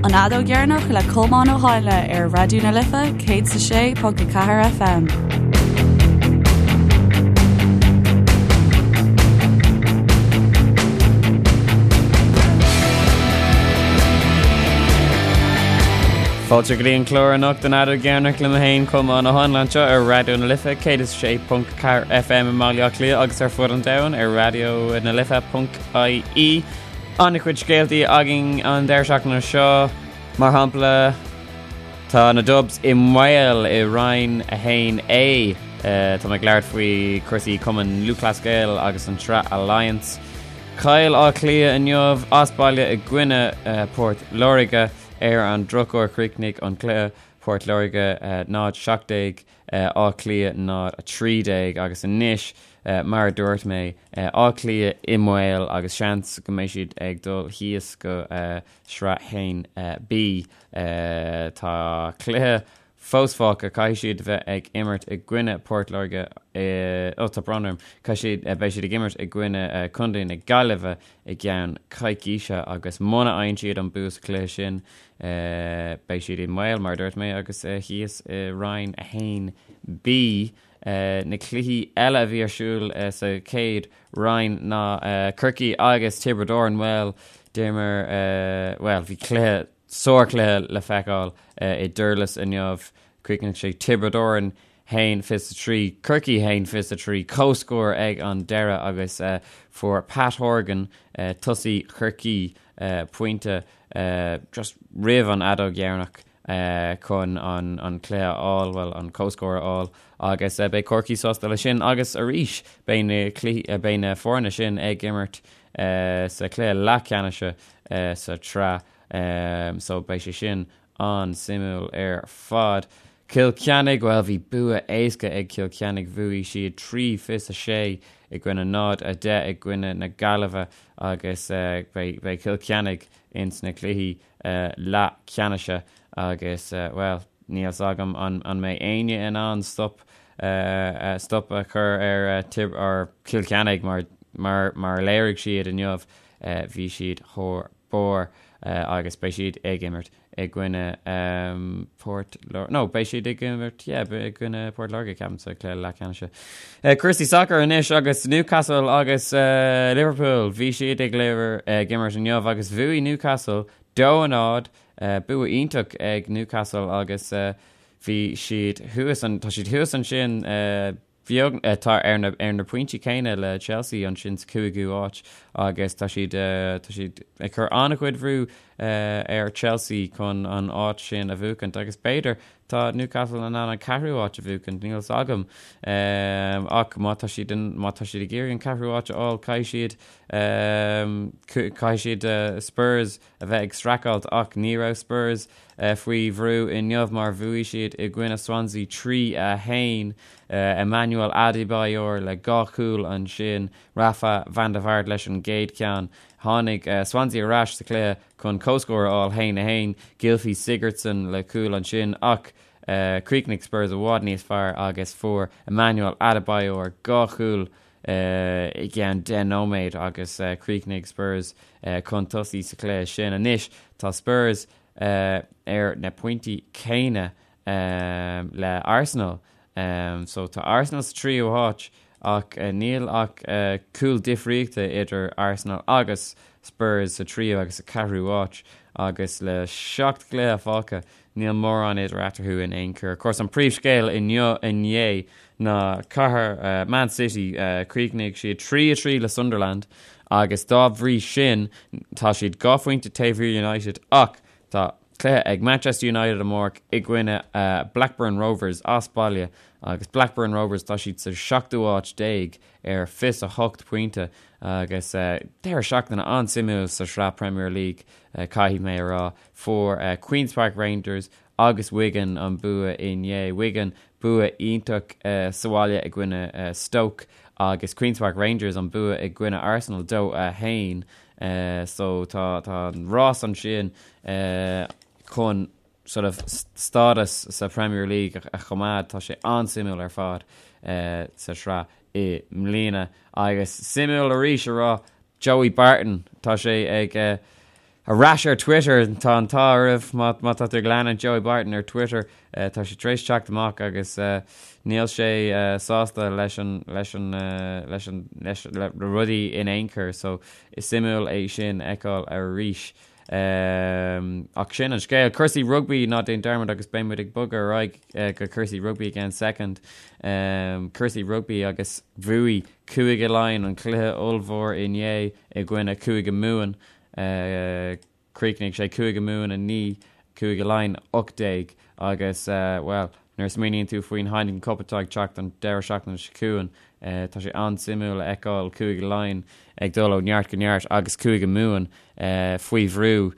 An Fheadóg Dheireanach le Colmán Ó Háinle ar Raidió na Life 106.4 FM. Fáilte go dtí an clár anocht an Fheadóg Dheireanach liom féin Colmán Ó Háinle anseo ar Raidió na Life 106.4 FM i mBaile Átha Cliath agus ar fud an domhain ar raidió na life.ie. An-chuid scéaltaí againn an deireadh seachtaine seo, mar shampla, tá na Dubs i mbaol i Roinn 1A. Tá mé ag labhairt faoi cúrsaí Cumann Lúthchleas Gael agus an tSraith Alliance. Chaill Áth Cliath inniu as baile i gcoinne Port Láirge. Ar an drochuair chríochnaigh an cluiche Port Láirge 0-17, Áth Cliath 0-13 agus anois Mar a dúirt mé, Áth Cliath i mbaol agus seans go mbeidh siad ag dul thíos go Sraith 1B. Tá cluiche fós fágtha, caithfidh siad bheith ag imirt i gcoinne Port Láirge, ó tá brón orm, caithfidh siad, beidh siad ag imirt i gcoinne Contae na Gaillimhe i gceann coicíse agus muna fhaigheann siad an bua sa chluiche sin, beidh siad i mbaol, mar a dúirt mé, agus thíos i Roinn 1B. Na cluichí eile a bhí ar siúl sa chéad roinn ná Corcaigh agus Tiobraid Árann. Bhuel, d'imir, bhuel, bhí cluiche, sárchluiche le feiceáil i nDurlas inniu. Chríochnaigh sé Tiobraid Árann 1-23, Corcaigh 1-23, comhscór ag an deireadh agus fuair Pat Horgan, tosaí Chorcaí, pointe just roimh an fheadóg dheireanach. chun an cluiche a fháil, bhuel, an comhscór a fháil agus beidh Corcaigh sásta leis sin agus arís beidh na cluichí, beidh na foirne sin ag imirt sa chluiche leathcheannais sa tsraith so beidh sé sin an-suimiúil ar fad. Cill Chainnigh, bhuel bhí bua éasca ag Cill Chainnigh, bhuaigh siad 3 26 i gcoinne 0, 10 i gcoinne na Gaillimhe agus beidh Cill Chainnigh ins na cluichí leathcheannais agus, bhuel, níl 's agam an mbeidh éinne in ann stop stop a chur ar ar Chill Chainnigh mar mar mar a léirigh siad inniu, bhí siad thar barr agus beidh siad ag imirt i gcoinne Port Láirge, no, beidh siad ag imirt, yeah, i gcoinne Port Láirge, ceapaim, sa chluiche leathcheannais. Cúrsaí sacair anois agus Newcastle agus Liverpool. Bhí siad ag ag imirt inniu agus bhuaigh Newcastle 2-0. Bua iontach ag Newcastle agus bhí siad thuas, tá siad thuas ansin beag, tá ar na ar na pointí céanna le Chelsea ansin sa chúigiú háit agus tá siad tá siad ag cur an-chuid bhrú ar Chelsea chun an áit sin a bhuachaint agus b'fhéidir Tá Newcastle in ann an ceathrú áit a bhuachaint, níl 's agam. Ach má tá siad in, má tá siad ag iarraidh an ceathrú áit a fháil, caithfidh siad, caithfidh siad Spurs a bheith ag streachailt ach ní raibh Spurs faoi bhrú inniu mar bhuaigh siad i gcoinne Swansea 3, 1. Emmanuel Adebayor le dhá chúl ansin, Rafa van der Vaart leis an gcéad cheann. Tháinig Swansea ar ais sa chluiche chun comhscór a fháil, 1, 1, Gylfi Sigurdsson le cúl ansin ach chríochnaigh Spurs i bhfad níos fearr agus fuair Emmanuel Adebayor dhá chúl i gceann 10 nóiméad agus chríochnaigh Spurs chun tosaigh sa chluiche sin. Anois tá Spurs ar na pointí céanna le Arsenal. So tá Arsenal sa tríú háit ach níl ach cúl difríochta idir Arsenal agus Spurs sa tríú agus sa cheathrú háit agus le 7 gcluiche fágtha níl mórán idir eatarthu in aon chor. Of course an príomhscéal inniu inné ná cathair Man City chríochnaigh siad 3-3 le Sunderland agus dá bhrí sin tá siad dhá phointe taobh thiar United ach Tá cluiche ag Manchester United amárach i gcoinne Blackburn Rovers as baile agus Blackburn Rovers tá siad sa seachtú háit déag ar 28 pointe agus deireadh seachtaine an-suimiúil sa sraith Premier League caithfidh mé a rá. Fuair Queens Park Rangers agus Wigan an bua inné. Wigan bua iontach sa bhaile i gcoinne Stoke agus Queens Park Rangers an bua i gcoinne Arsenal 2-1. So tá tá an rás ansin chun sort of stádas sa Premier League a choimeád, tá sé an-suimiúil ar fad sa sraith i mbliana. Agus suimiúil arís a rá, Joey Barton, tá sé ag. Ar ais ar Twitter, tá an t-ádh oraibh má má tá tú ag leanúint Joey Barton ar Twitter, tá sé tar éis teacht amach agus níl sé sásta leis an leis an leis an leis le rudaí in aon chor so is suimiúil é sin a fheiceáil arís. Ach sin an scéal. Cúrsaí rugbaí, ná déan dearmad agus beidh muid ag bogadh ar aghaidh go cúrsaí rugbaí i gceann soicind. Cúrsaí rugbaí agus bhuaigh Cúige Laighean an cluiche ollmhór inné i gcoinne Cúige Mumhan. Chríochnaigh sé Cúige Mumhan 9, Cúige Laighean 18 agus, bhuel, nuair a smaoiníonn tú faoin Heineken Cup atá ag teacht an deireadh seachtaine seo chugainn, tá sé an-suimiúil a fheiceáil Cúige Laighean ag dul ó neart go neart agus Cúige Mumhan faoi bhrú.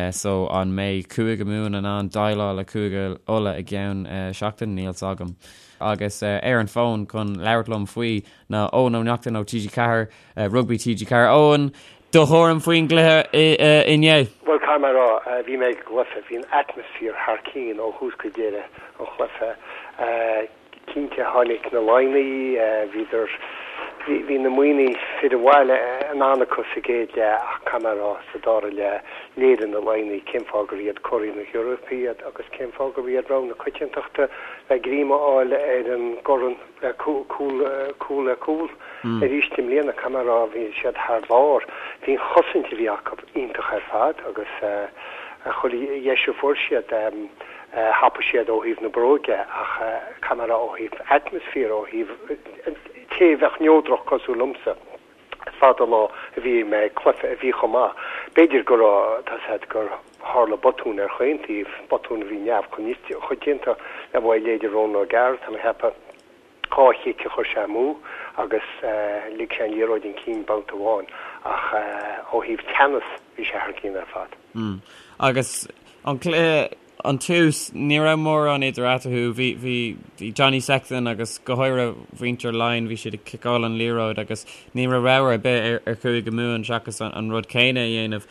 So an mbeidh Cúige Mumhan in ann déileáil le Cúige Uladh i gceann seachtain? Níl 's agam. Agus ar an bhfón chun labhairt liom faoi ná Eoin Ó Neachtain ó TG4, Rugbaí TG4. Eoin, do thuairim faoin gcluiche inné? Bhuel, caithfidh mé a rá, bhí mé ag an gcluiche, bhí an atmaisféar thar cinn ó thús go deireadh an chluiche. Cinnte, tháinig na Laighnigh, bhíodar, bhí na Muimhnigh, fir an bhaile, in ann acu sa gcéad leath ach caithfidh mé a rá, sa dara leath, léirigh na Laighnigh cén fáth gur iad curaidh na hEorpa iad agus cén fáth gurb iad rogha na coitiantachta le greim a fháil ar an gcorn le cúl, cúl le cúl arís i mbliana. Caithfidh mé a rá, bhí siad thar barr. Bhí an chosaint a bhí acu iontach ar fad agus chuile dheis a fuair siad, Thapaigh siad ó thaobh na bróige ach caithfidh mé a rá ó thaobh atmaisféar, ó thaobh té a bheadh neodrach cosúil liomsa, is fada an lá a bhí mé ag cluiche a bhí chomh maith. B'fhéidir go raibh, tá 's a'd, gur tharla botún ar chaon taobh, botún a bhí neamhchoitianta le uaidh leithéide Ronan O'Gara, tá mé a cheapadh. 2 chic a chuir sé amú agus lig sé an liathróid chun cinn babhta amháin ach ó thaobh teannas bhí sé thar cionn ar fad. Agus an cluiche, an tús, ní raibh mórán idir eatarthu. Bhí, bhí, bhí Johnny Sexton agus go háirithe mhuintir Laighean, bhí siad ag ciceáil an liathróid agus ní raibh rogha ar bith ar, ar Chúige Mumhan seachas an, an rud céanna a dhéanamh.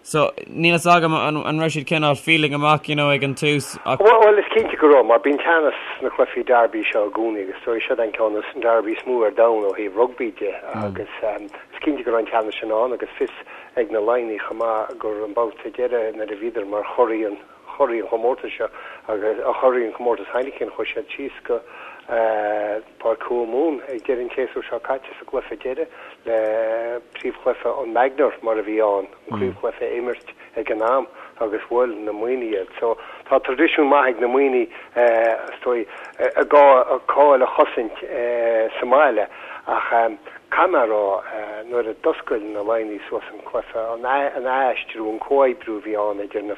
So, níl fhios agam an raibh siad cineál feeling amach, you know, ag an tús ach. Bhuel, is cinnte go raibh, mar bíonn teannas sna cluichí derby seo i gcónaí agus is dóigh siod an ceann is derby is mó ar domhan ó thaobh rugbaí de agus is cinnte go raibh an teannas sin ann agus fios ag na Laighnigh chomh maith gur an babhta deiridh nuair a bhíodar mar churaidh an churaidh an chomórtais seo agus churaidh an chomórtais Heineken chuaigh siad síos go Páirc Thuamhumhan ag deireadh an tséasúir seo caite sa gcluiche deiridh le príomhchluiche an Magner mar a bhí ann, an craobhchluiche a imirt ag an am agus bhuail na Muimhnigh iad. So tá traidisiún maith ag na Muimhnigh is dóigh a gcáil a chosaint sa mbaile ach caithfidh mé a rá nuair a d'oscail na Laighnigh suas an cluiche, an aistriú, an comhoibriú a bhí ann idir na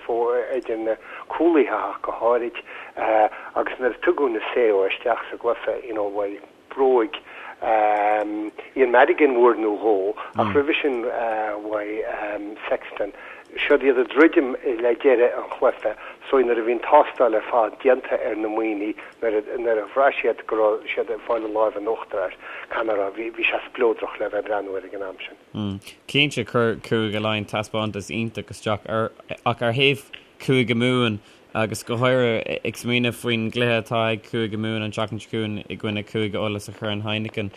idir na cúlaithe ach go háirid agus nuair a tugadh Naseo isteach sa gcluiche, you know, bhuel, bróig Ian Madigan uair nó dhó ach roimhe sin bhuaigh Sexton. Siod iad ag druidim le deireadh an chluiche so nuair a bhí an tástáil ar fad déanta ar na Muimhnigh, nuair a nuair a bhraith siad go raibh siad ag fáil an láimh in uachtar air, caithfidh mé a rá, bhí bhí sé spleodrach le bheith ag breathnú air ag an am sin. Cinnte, chuir Cúige Laighean taispeántas iontach isteach ar ach ar thaobh Cúige Mumhan agus go háirithe ag smaoineamh faoin gcluiche atá ag Cúige Mumhan an tseachtain seo chugainn i gcoinne Cúige Uladh sa Chorn Heineken.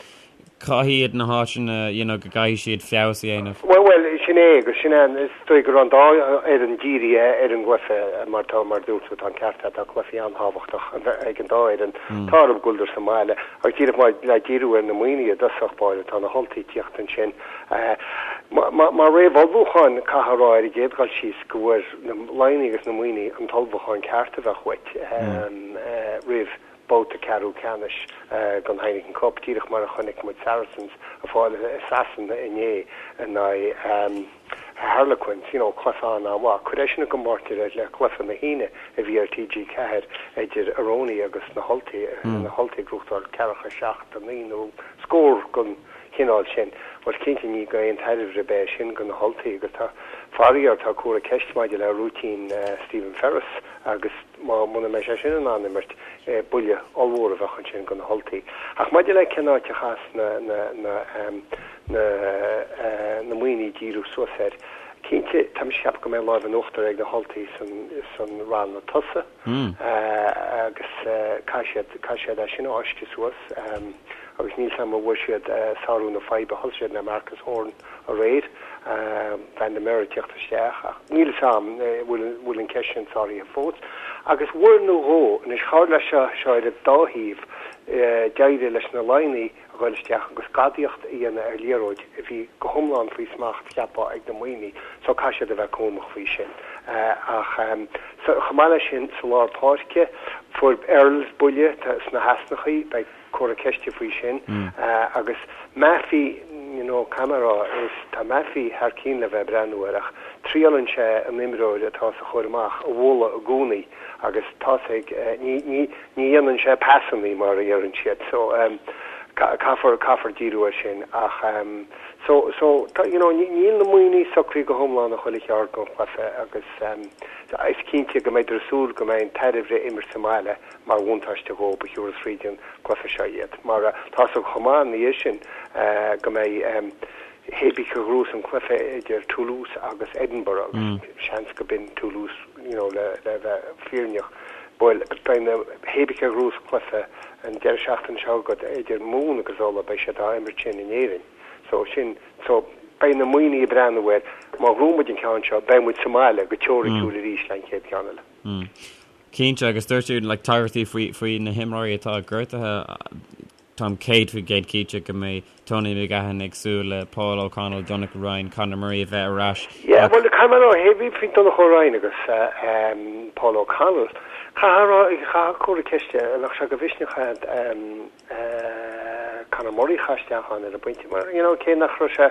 Cá hiad na háiteanna you know go gcaithfidh siad feabhas a dhéanamh? Bhuel, bhuel, sin é agus sin é, is dóigh go raibh an dá fhoireann dírithe ar an gcluiche mar tá, mar a dúirt tú, tá an ceart agat, tá cluichí an-tábhachtach ag an dá fhoireann. Tá orthu go bhfuileadar sa mbaile ach díreach mar le díriú ar na Muimhnigh i dtosach báire, tá na hUltaigh ag tíocht ansin. Mar réamhullmhúchán, caithfidh a rá ar an gcéad dhul síos go bhfuair na Laighnigh agus na Muimhnigh an t-ullmhúchán ceart a bheadh uait roimh babhta ceathrú ceannais den Heineken Cup, díreach mar a chonaic muid Saracens ag fáil i Sasana inné in aghaidh Harlequins, you know, cluiche an-mhaith. Cuir é sin i gcomparáid le cluiche na hAoine a bhí ar TG4 idir Aroni agus na hUltaigh, na hUltaigh ag gnóthachtáil ceathracha 7, 9 nó scór den chineál sin. Bhuel, cinnte ní d'aon tairbhe ar bith é sin do na hUltaigh agus tá, faraor, tá comhartha ceiste maidir le rúitín Stephen Ferris agus má, muna mbeidh sé sin in ann imirt, buille ollmhór a bheadh ansin do na hUltaigh. Ach maidir le cén áit a chaithfeas na, na, na, na, na Muimhnigh díriú suas air, cinnte, tá mise ag ceapadh go mbeidh an láimh in uachtar ag na hUltaigh san, san ranna tosaigh agus caithfidh siad, caithfidh siad é sin a fháisceadh suas agus níl 's a'm an bhfuair siad sárú na faidhbe, thosaigh siad le Marcus Horan aréir. Van der Merwe ag teacht isteach ach níl fhios a'm bhfuil an ceist sin sáraithe fós. Agus uair nó dhó, anois tharla seo seo ar an dá thaobh, d'éirigh leis na Laighnigh a ghoil isteach agus gadaíocht a dhéanamh ar liathróid a bhí go hiomlán faoi smacht, cheapfá, ag na Muimhnigh so caithfidh siad a bheith cúramach faoi sin. Ach chomh maith leis sin, sa lár páirce, fuair Earls buille sna heasnachaí, beidh comhartha ceiste faoi sin. Agus Mafi, you know, caithfidh mé a rá, is tá Mafi thar cionn le bheith ag breathnú air ach triaileann sé an imreoir atá sa chur amach a bhualadh i gcónaí agus tá's ag, ní, ní, ní dhéanann sé pasannaí mar a deireann siad so caithfear, caithfear díriú air sin ach so, so, tá, you know, níl na Muimhnigh socraithe go hiomlán a chuile cheard don chluiche agus is cinnte go mbeidh ag súil go mbeidh an tairbhe imirt sa mbaile mar bhuntáiste dhóibh a thiúrfas fríd an gcluiche seo iad. Mar tá's agat chomh maith ina dhiaidh sin go mbeidh hé bí cé a ghnóthós an cluiche idir Toulouse agus Edinburgh agus seans go b'in Toulouse you know le le bheith fírinneach. Bhuel beidh na hé bí cé a ghnóthós cluiche an deireadh seachtaine seo agat idir Mumhan agus Ulaidh beidh siad á imirt sin in Éirinn. So sin so beidh na Muimhnigh ag breathnú air má ghnóthaíonn muid an ceann seo beidh muid sa mbaile go teoiriciúil arís le an chéad cheann eile. Cinnte, agus dúirt tú like tagairtí faoi faoi na himreoirí atá gortaithe, táim 100% cinnte go mbeidh Tony McGahan ag súil le Paul O'Connell, Donnacha Ryan, Conor Murray a bheith ar ais. Yeah, bhuel, caithfidh mé a rá, hé bhí faoi Donncha Ryan agus Paul O'Connell, caithfidh a rá, caithfidh comhartha ceiste, nach sé de mhisneach é Conor Murray a chur isteach ann ar an bpointe mar, you know, cé nach raibh sé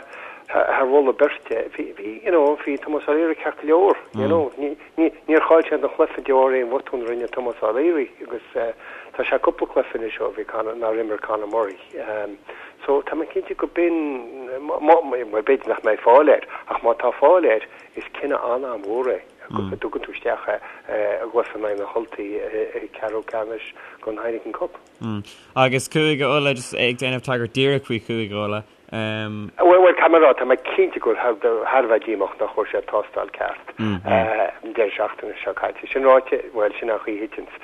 thar mholadh beirte, bhí, bhí, you know, bhí Tomás O'Leary ceart go leor, you know, ní, ní, níor chaill siad an chluiche de bharr aon bhotún a rinne Tomás O'Leary agus tá sé cúpla cluiche anois ó bhí Conor, nár imir Conor Murray. So tá mé cinnte go b'in, má, má, bhuel b'fhéidir nach mbeidh fáil air ach má tá fáil air is cinneadh an-an-mhór é go dtugann tú isteach é i gcluiche in aghaidh na hUltaí i gceathrú ceannais den Heineken Cup. Agus Cúige Uladh, just ag déanamh tagairt díreach faoi Chúige Uladh. Bhuel, bhuel, caithfidh mé a rá, tá mé cinnte go bhfuil thar a bheith díomách nach bhfuair siad tástáil ceart an deireadh seachtaine seo caite. Sin ráite, bhuel, sin an chaoi a thiteanns,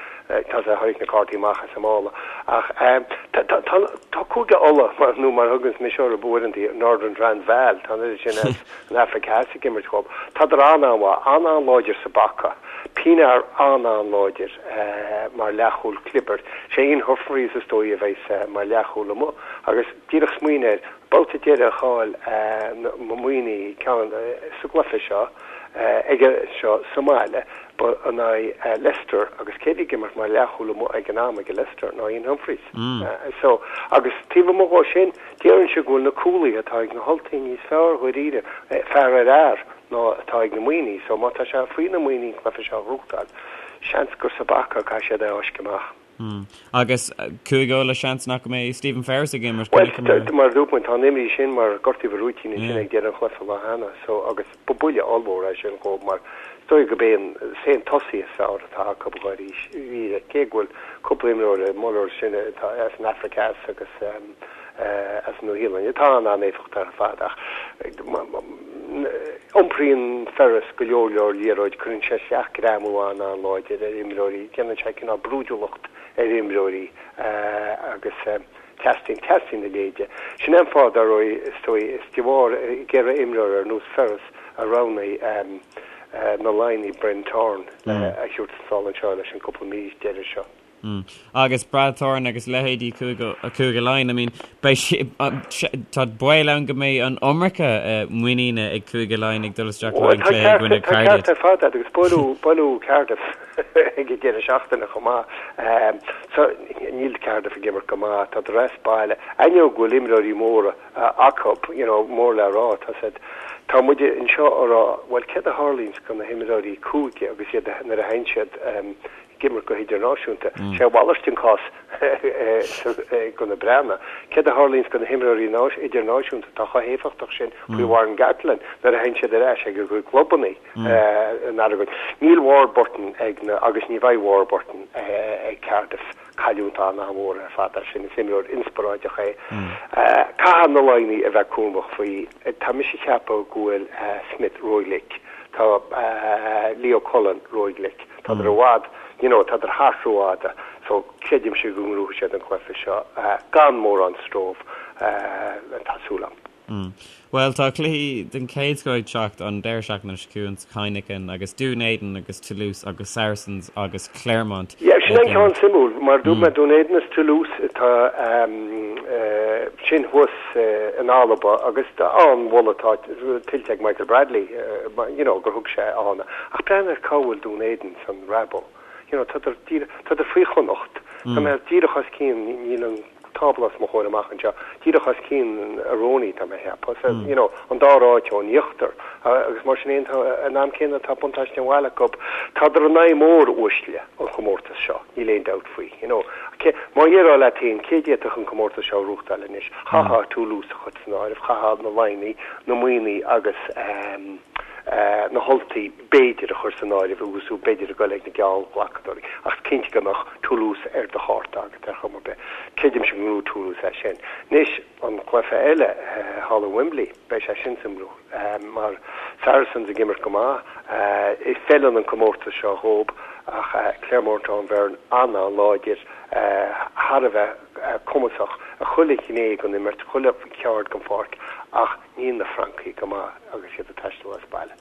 tá sé tháinig na cártaí amach as an mála. Ach tá, tá, tá, tá Cúige Uladh, mar, nó mar a thuganns mise orthu uaireanta, Northern Transvaal, tá an oiread sin as an Afraic Theas ag imirt dhób. Tádar an-an-mhaith, an-an-láidir sa bpaca. Pienaar an-an-láidir mar leathchúl clibirte. Sé Ian Humphreys is dóigh a bheas mar leathchúl amuigh agus díreach smaoinigh air, babhta deiridh a chaill na Muimhnigh ceann sa gcluiche seo aige seo sa mbaile ba in aghaidh Leicester agus cé a bhí ag imirt mar leathchúl amuigh ag an am ag Leicester ná Ian Humphreys. So agus taobh amuigh dhó sin déarfainnse go bhfuil na cúlaithe atá ag na hUltaigh níos fearr dháiríre, fear ar fhear. ná atá ag na Muimhnigh, so má tá sé faoi na Muimhnigh an cluiche seo a ghnóthachtáil, seans gur sa bpaca a caithfidh siad é a fháisceadh amach. Agus Cúige Uladh, seans nach mbeidh Stephen Ferris ag imirt, Bhuel, mar a dúirt muid, tá an imní sin mar gortaíodh a rúitín ansin ag deireadh an chluiche lá cheana, so agus ba buille ollmhór é sin dhóibh mar is dóigh gurb é an, is é an tosaí is fearr atá acu dháiríre, cé go bhfuil cúpla imreoir, Muller sin atá as an Afraic Theas agus as an Nua-Shéalainn atá an-an-éifeachtach ar fad ach Iompraíonn Ferris go leor leor liathróid, cuireann sé isteach greamú an-an-láidir ar imreoirí, déanann sé cineál brúidiúlacht ar imreoirí agus teastaíonn, teastaíonn a leithéid. Sin é an fáth, dar ndóigh, is dóigh, is de bharr ag iarraidh imreoir ar nós Ferris a roghnaigh na Laighnigh Brendan Thorne le a thabhairt sall anseo leis an gcúpla mí deiridh seo. Agus Brad Thorn agus leithéidí Cúige Laighean, I mean, beidh sé, tá baol ann go mbeidh an iomarca muiníne ag Cúige Laighean ag dul isteach le haghaidh an cluiche i gcoinne Cardiff. Tá ceart ar fad agat agus buaileadh, buaileadh Cardiff ag an deireadh seachtaine chomh maith. So, níl Cardiff ag imirt go maith, tá as baile. Ainneoin go bhfuil imreoirí móra acu, you know, mór le rá, tá siad, tá muid anseo a rá, bhuel, céard a tharlaíonns do na himreoirí cúige agus iad nuair a théann siad ag imirt go hidirnáisiúnta. Sé a mhalairt an cás do na Breathnaigh. Céard a tharlaíonns do na himreoirí idirnáisiúnta atá chomh héifeachtach sin faoi Warren Gatland nuair a théann siad ar ais ag a gcuid clubanna in Aragon? Níl Warburton ag na agus ní bheidh Warburton ag Cardiff. Cailliúint an-mhór ar fad é sin. Is imreoir inspioráideach é. Caithfidh na Laighnigh a bheith cúramach faoi. Tá mise ag ceapadh go bhfuil Smith róghlic. Tá Leo Cullen róghlic. Tádar i bhfad, you know, tádar thart rófhada. So, creidimse go ngnóthóidh siad an cluiche seo gan mórán stró, tá súil agam. Bhuel, tá cluichí den chéad scoth ag teacht an deireadh seachtaine seo chugainn sa Heineken agus Dún Éideann agus Toulouse agus Saracens agus Clermont Yeah, sin an ceann suimiúil, mar dúirt mé Dún Éideann is Toulouse atá sin thuas in Alba agus an-mholadh atá tuillte ag Michael Bradley, you know, gur thug sé ann. Ach breathnaigh ar cá bhfuil Dún Éideann san Rabo. You know, tádar díreach, tádar faoi Chonnacht, tá mé díreach os cionn, níl an tábla os mo chomhair amach anseo, díreach os cionn Aironi, tá mé a cheapadh, so, you know, an dara áit ón íochtar, agus mar sin fhéin, tá, an am céanna tá buntáiste an bhaile acu, tádar in aghaidh mór uaisle an chomórtais seo, níl aon dabht faoi, you know. Cé, má dhéarfá leat féin, cé d'fhéadfadh an comórtas seo a ghnóthachtáil anois, chaithfeá Toulouse a chur san áireamh, chaithfeá na Laighnigh, na Muimhnigh agus na hUltaigh, b'fhéidir, a chur san áireamh agus tú b'fhéidir ag goil ag na geallghlacadóirí, ach is cinnte go mbeadh Toulouse ar do chárta agat ar chuma ar bith. Creidimse go ngnóthóidh Toulouse é sin. Anois, an cluiche eile, thall i Wembley, beidh sé sin suimiúil, mar Saracens ag imirt go maith, feileann an comórtas seo dhób, ach Clermont an-fhoireann an-an-láidir, thar a bheith cumasach i chuile ghné den imirt, chuile cheard den pháirc, ach níl na Francaigh go maith agus iad ag taisteal as baile.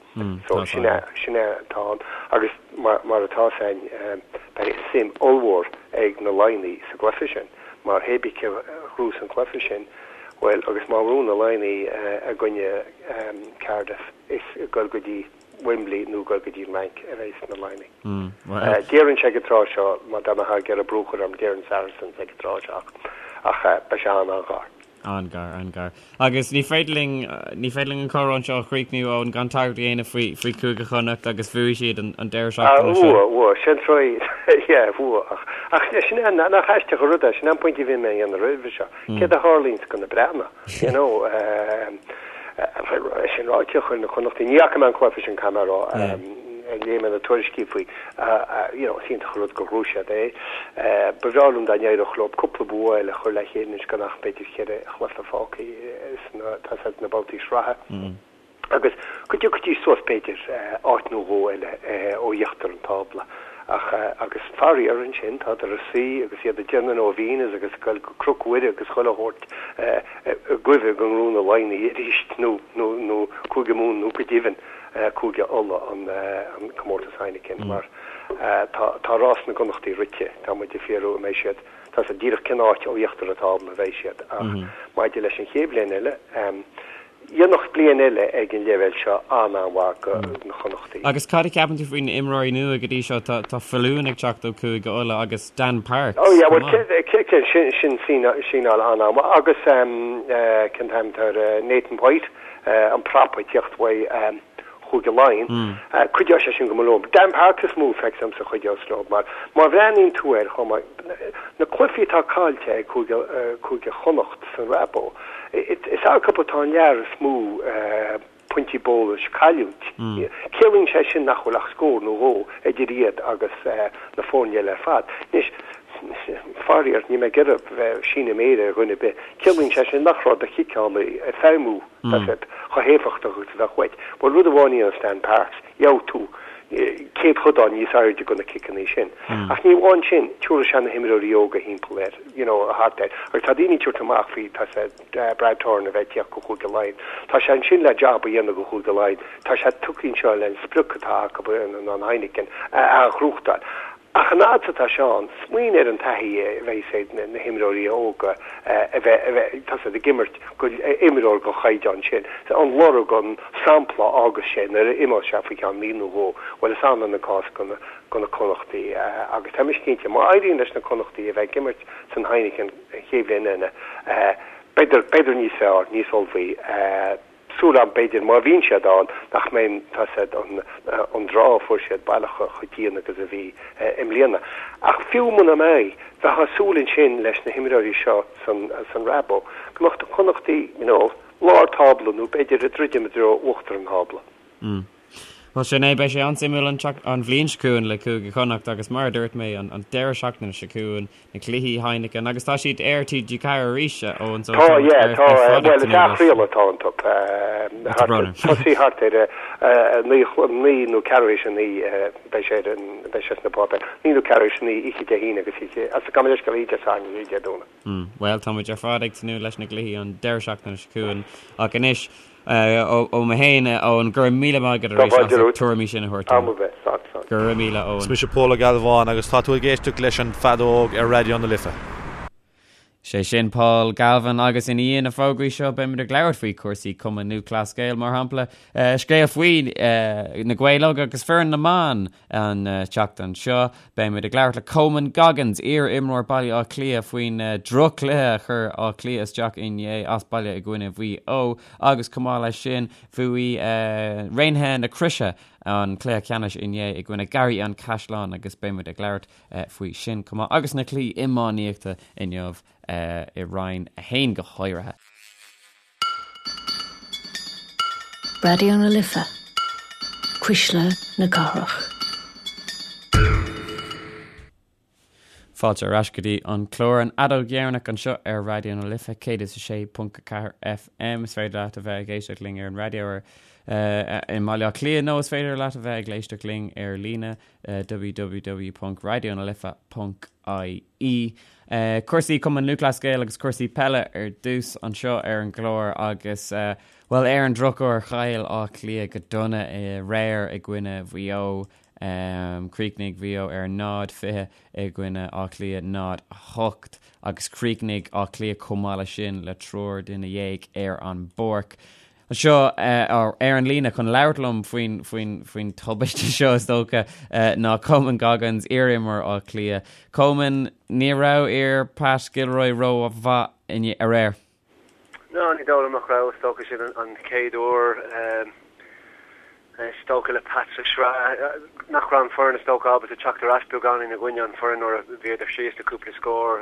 So sin é, sin é atá ann. Agus mar, mar atá 's a'inn, beidh suim ollmhór ag na Laighnigh sa gcluiche sin, mar hé bith cé a ghnóthós an cluiche sin, bhuel, agus má bhuann na Laighnigh i gcoinne Cardiff, is ag dul go dtí Wembley nó ag dul go dtí an Fhrainc a bheas na Laighnigh. Déarfainnse ag an tráth seo, má dá mbeifeá ag iarraidh brú a chur orm, déarfainn Saracens ag an tráth seo ach, ach beidh sé an-an-ghar. An-ghar, an-ghar. Agus ní féidir linn, ní féidir linn an comhrá anseo a chríochnú, Eoin, gan tagairt a dhéanamh faoi, faoi Chúige Chonnacht agus bhuaigh siad an, an deireadh seachtaine seo. Bhuaigh, bhuaigh, sin troid, yeah, bhuaigh. Ach, ach sin é, nach aisteach an rud é, sin é an pointe a bhí mé a dhéanamh roimhe seo. Céard a tharlaíonns go na Breathnaigh, you know, sin ráite, chuir na Connachtaigh, ní fhaca mé an cluiche sin, caithfidh mé a rá, léigh mé na tuairiscí faoi, you know, is iontach an rud gur ghnóthaigh siad é. Ba bhreá liom dá n-éireodh leo cúpla bua eile a chur le chéile anois gan ach b'fhéidir cheithre chluiche fágtha sna, tá 's a'd, na babhtaí sraithe. Agus go dtiocfaidís suas b'fhéidir áit nó dhó eile ó íochtar an tábla. Ach, agus faraor ansin, tádar ina suí agus iad ag déanamh novenas agus ag goil go Cnoc Mhuire agus chuile shórt i gcuimhne go ngnóthóidh na Laighnigh arís nó, nó, nó Cúige Mumhan nó go deimhin Cúige Uladh an, an comórtas Heineken mar tá, tá rás na gConnachtaí rite, tá muid ag fiafraí an mbeidh siad, tá 's a'd díreach cén áit ó íochtar an tábla a bheidh siad ach maidir leis an chéad bhliain eile, Dhéanfadh bliain eile ag an leibhéal seo an-an-mhaith go na Connachtaigh. Agus cad a cheapann tú faoi na imreoirí nua go dtí seo? Tá tá Faloon ag teacht ó Chúige Uladh agus Dan Parks Oh yeah, chomh well maith. cé cé sin sin síneáil an-an-mhaith agus cén t-ainm atá air Nathan White an prop ag teacht uaidh Chúige Laighean. Cuideoidh sé sin go mór leo. Dan Parks is mó feictear domsa a chuideos leo mar má bhreathnaíonn tú air chomh maith, na cluichí atá caillte ag Cúige, Cúige Chonnacht san Rabo, is acu atá an lear is mó pointí bónais cailliúint. Ciallaíonn sé sin nach bhfuil ach scór nó dhó idir iad agus na foirne eile ar fad. Anois, faraor, níl mé ag iarraidh bheith ag síneadh méire ar dhuine ar bith, ciallaíonn sé sin nach raibh do chiceálaí ag feidhmiú. Tá siad chomh héifeachtach agus a bheadh uait. Bhuel, rud amháin a dhéanas Dan Parks, gheobhaidh tú céadchodán níos airde go na ciceanna sin. Ach ní amháin sin, tabharfaidh sé na himreoirí óga thimpeall air, you know, thart air. Agus tá daoine ag tabhairt amach faoi, tá sé, Brad Thorn a bheith ag tíocht go Chúige Laighean. Tá sé ansin le jab a dhéanamh go Chúige Laighean. Tá sé tugtha anseo le an sprioc atá acu, an Heineken, a ghnóthachtáil. Ach an fhad is atá sé ann, smaoinigh ar an taithí a bheidh ag na himreoirí óga a bheith, tá siad ag imirt go imreoir den chaighdeán sin. An lorg, an sampla a fhágas sé nuair a imeos sé faoi cheann mí nó dhó, bhuel is annamh an cás go na Connachtaigh agus tá mise cinnte, má éiríonn leis na Connachtaigh a bheith ag imirt san Heineken an chéad bhliain eile, beidh, beidh níos fearr, níos ullmhaí. Súil agam, b'fhéidir, má bhíonn siad ann, nach mbeidh, tá 's a'd, an draw a fuair siad baileach chomh dian agus a bhí i mbliana. Ach fiú muna mbeidh, bheifeá ag súil ansin leis na himreoirí seo san, san Rabo, go mbeadh na Connachtaigh, you know, lár tábla nó b'fhéidir ag druidim i dtreo uachtar an tábla. Mm. Bhuel sin é, beidh sé an-suimiúil an an bhliain seo chugainn le Cúige Chonnacht agus mar a dúirt mé an an deireadh seachtaine seo chugainn na cluichí Heineken agus tá siad ar TG4 arís Eoin so Tá, yeah, tá, bhuel is athchraoladh atá iontu. Tosaí thart ar 9 nó ceathrú théis a 9 beidh sé ar an beidh sé sna páipéir. 9 nó ceathrú théis a 9 oíche Dé hAoine agus oíche as gabh mo leithscéal oíche Dé Sathairn agus oíche Dé Domhnaigh. Bhuel, tá muid ar fad ag tnúth leis na gcluichí an deireadh seachtaine seo chugainn ach anois ó mé féin, Eoin, go raibh míle maith agat arís as na tuairimí sin a thabhairt dúinn. Go raibh míle, Eoin. Is mise Pól Ó Gealbháin agus tá tú ag éisteacht leis an Feadóg ar Raidió na Life. Sé sin Paul Galvin agus i ndiaidh na fógraí seo beimid ag labhairt faoi chúrsaí Cumann Lúthchleas Gael mar shampla, scéal faoi na Gaeil Óga agus foireann na mban an tseachtain seo. Beimid ag labhairt le Coman Goggins, iar-imreoir Baile Átha Cliath faoin droch-chluiche a chuir Áth Cliath isteach inné as baile i gcoinne Mhaigh Eo agus chomh maith leis sin bhuaigh Raonaithe na Croise an cluiche ceannais inné i gcoinne Garraí an Chaisleáin agus beimid ag labhairt faoi sin chomh maith agus na cluichí iománaíochta inniu i Roinn 1 go háirithe. Raidió na Life, Cuisle na Cathrach. Fáilte ar ais go dtí an clár An Fheadóg Dheireanach anseo ar Raidió na Life 106.4 FM. Is féidir leat a bheith ag éisteacht linn ar an raidió ar i mBaile Átha Cliath nó is féidir leat a bheith ag éisteacht linn ar líne www.raidionalife.ie. Cúrsaí Cumann Lúthchleas Gael agus cúrsaí peile ar dtús anseo ar an gclár agus, bhuel, ar an drochuair chaill Áth Cliath go dona aréir i gcoinne Mhaigh Eo. Chríochnaigh Mhaigh Eo ar 0-20 i gcoinne Áth Cliath 0-8 agus chríochnaigh Áth Cliath chomh maith leis sin le triúr duine dhéag ar an bpáirc. Anseo ar an líne chun labhairt liom faoin, faoin, faoin tubaiste seo is dócha ná Coman Goggins, iar-imreoir Átha Cliath. Coman, ní raibh fir Pat Gilroy rómhaith inné, aréir. No, ní dóigh liom nach raibh. Is dócha sin an chéad uair is dócha le Pat sa sraith nach raibh an foireann is dócha ábalta teacht ar ais beagáinín i gcoinne an foireann nuair a bhíodar síos le cúpla scór.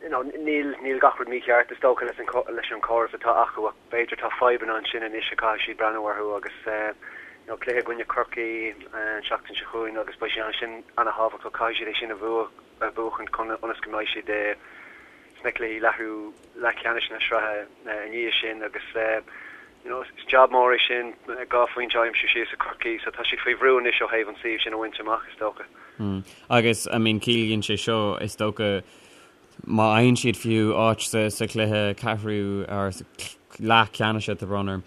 You know, níl, níl gach rud mícheart is dócha leis an, leis an chóras atá acu ach b'fhéidir tá fadhbanna ansin anois a caithfidh siad breathnú orthu agus you know, cluiche i gcoinne Chorcaí an tseachtain seo chugainn agus beidh sé ansin ana-thábhachtach, caithfidh siad é sin a bhua, a bhuachan chun, ionas go mbeidh siad sna cluichí leathrú, leathcheannais na sraithe i ndiaidh sin agus you know, is jab mór é sin, 2 phointe a aimsiú síos i Corcaigh so tá siad faoi bhrú anois ó thaobh an suíomh sin a bhaint amach is dócha. Agus I mean ciallaíonn sé seo is dócha má fhaigheann siad fiú áit sa sa chluiche ceathrú or sa leath ceannais tá brón orm,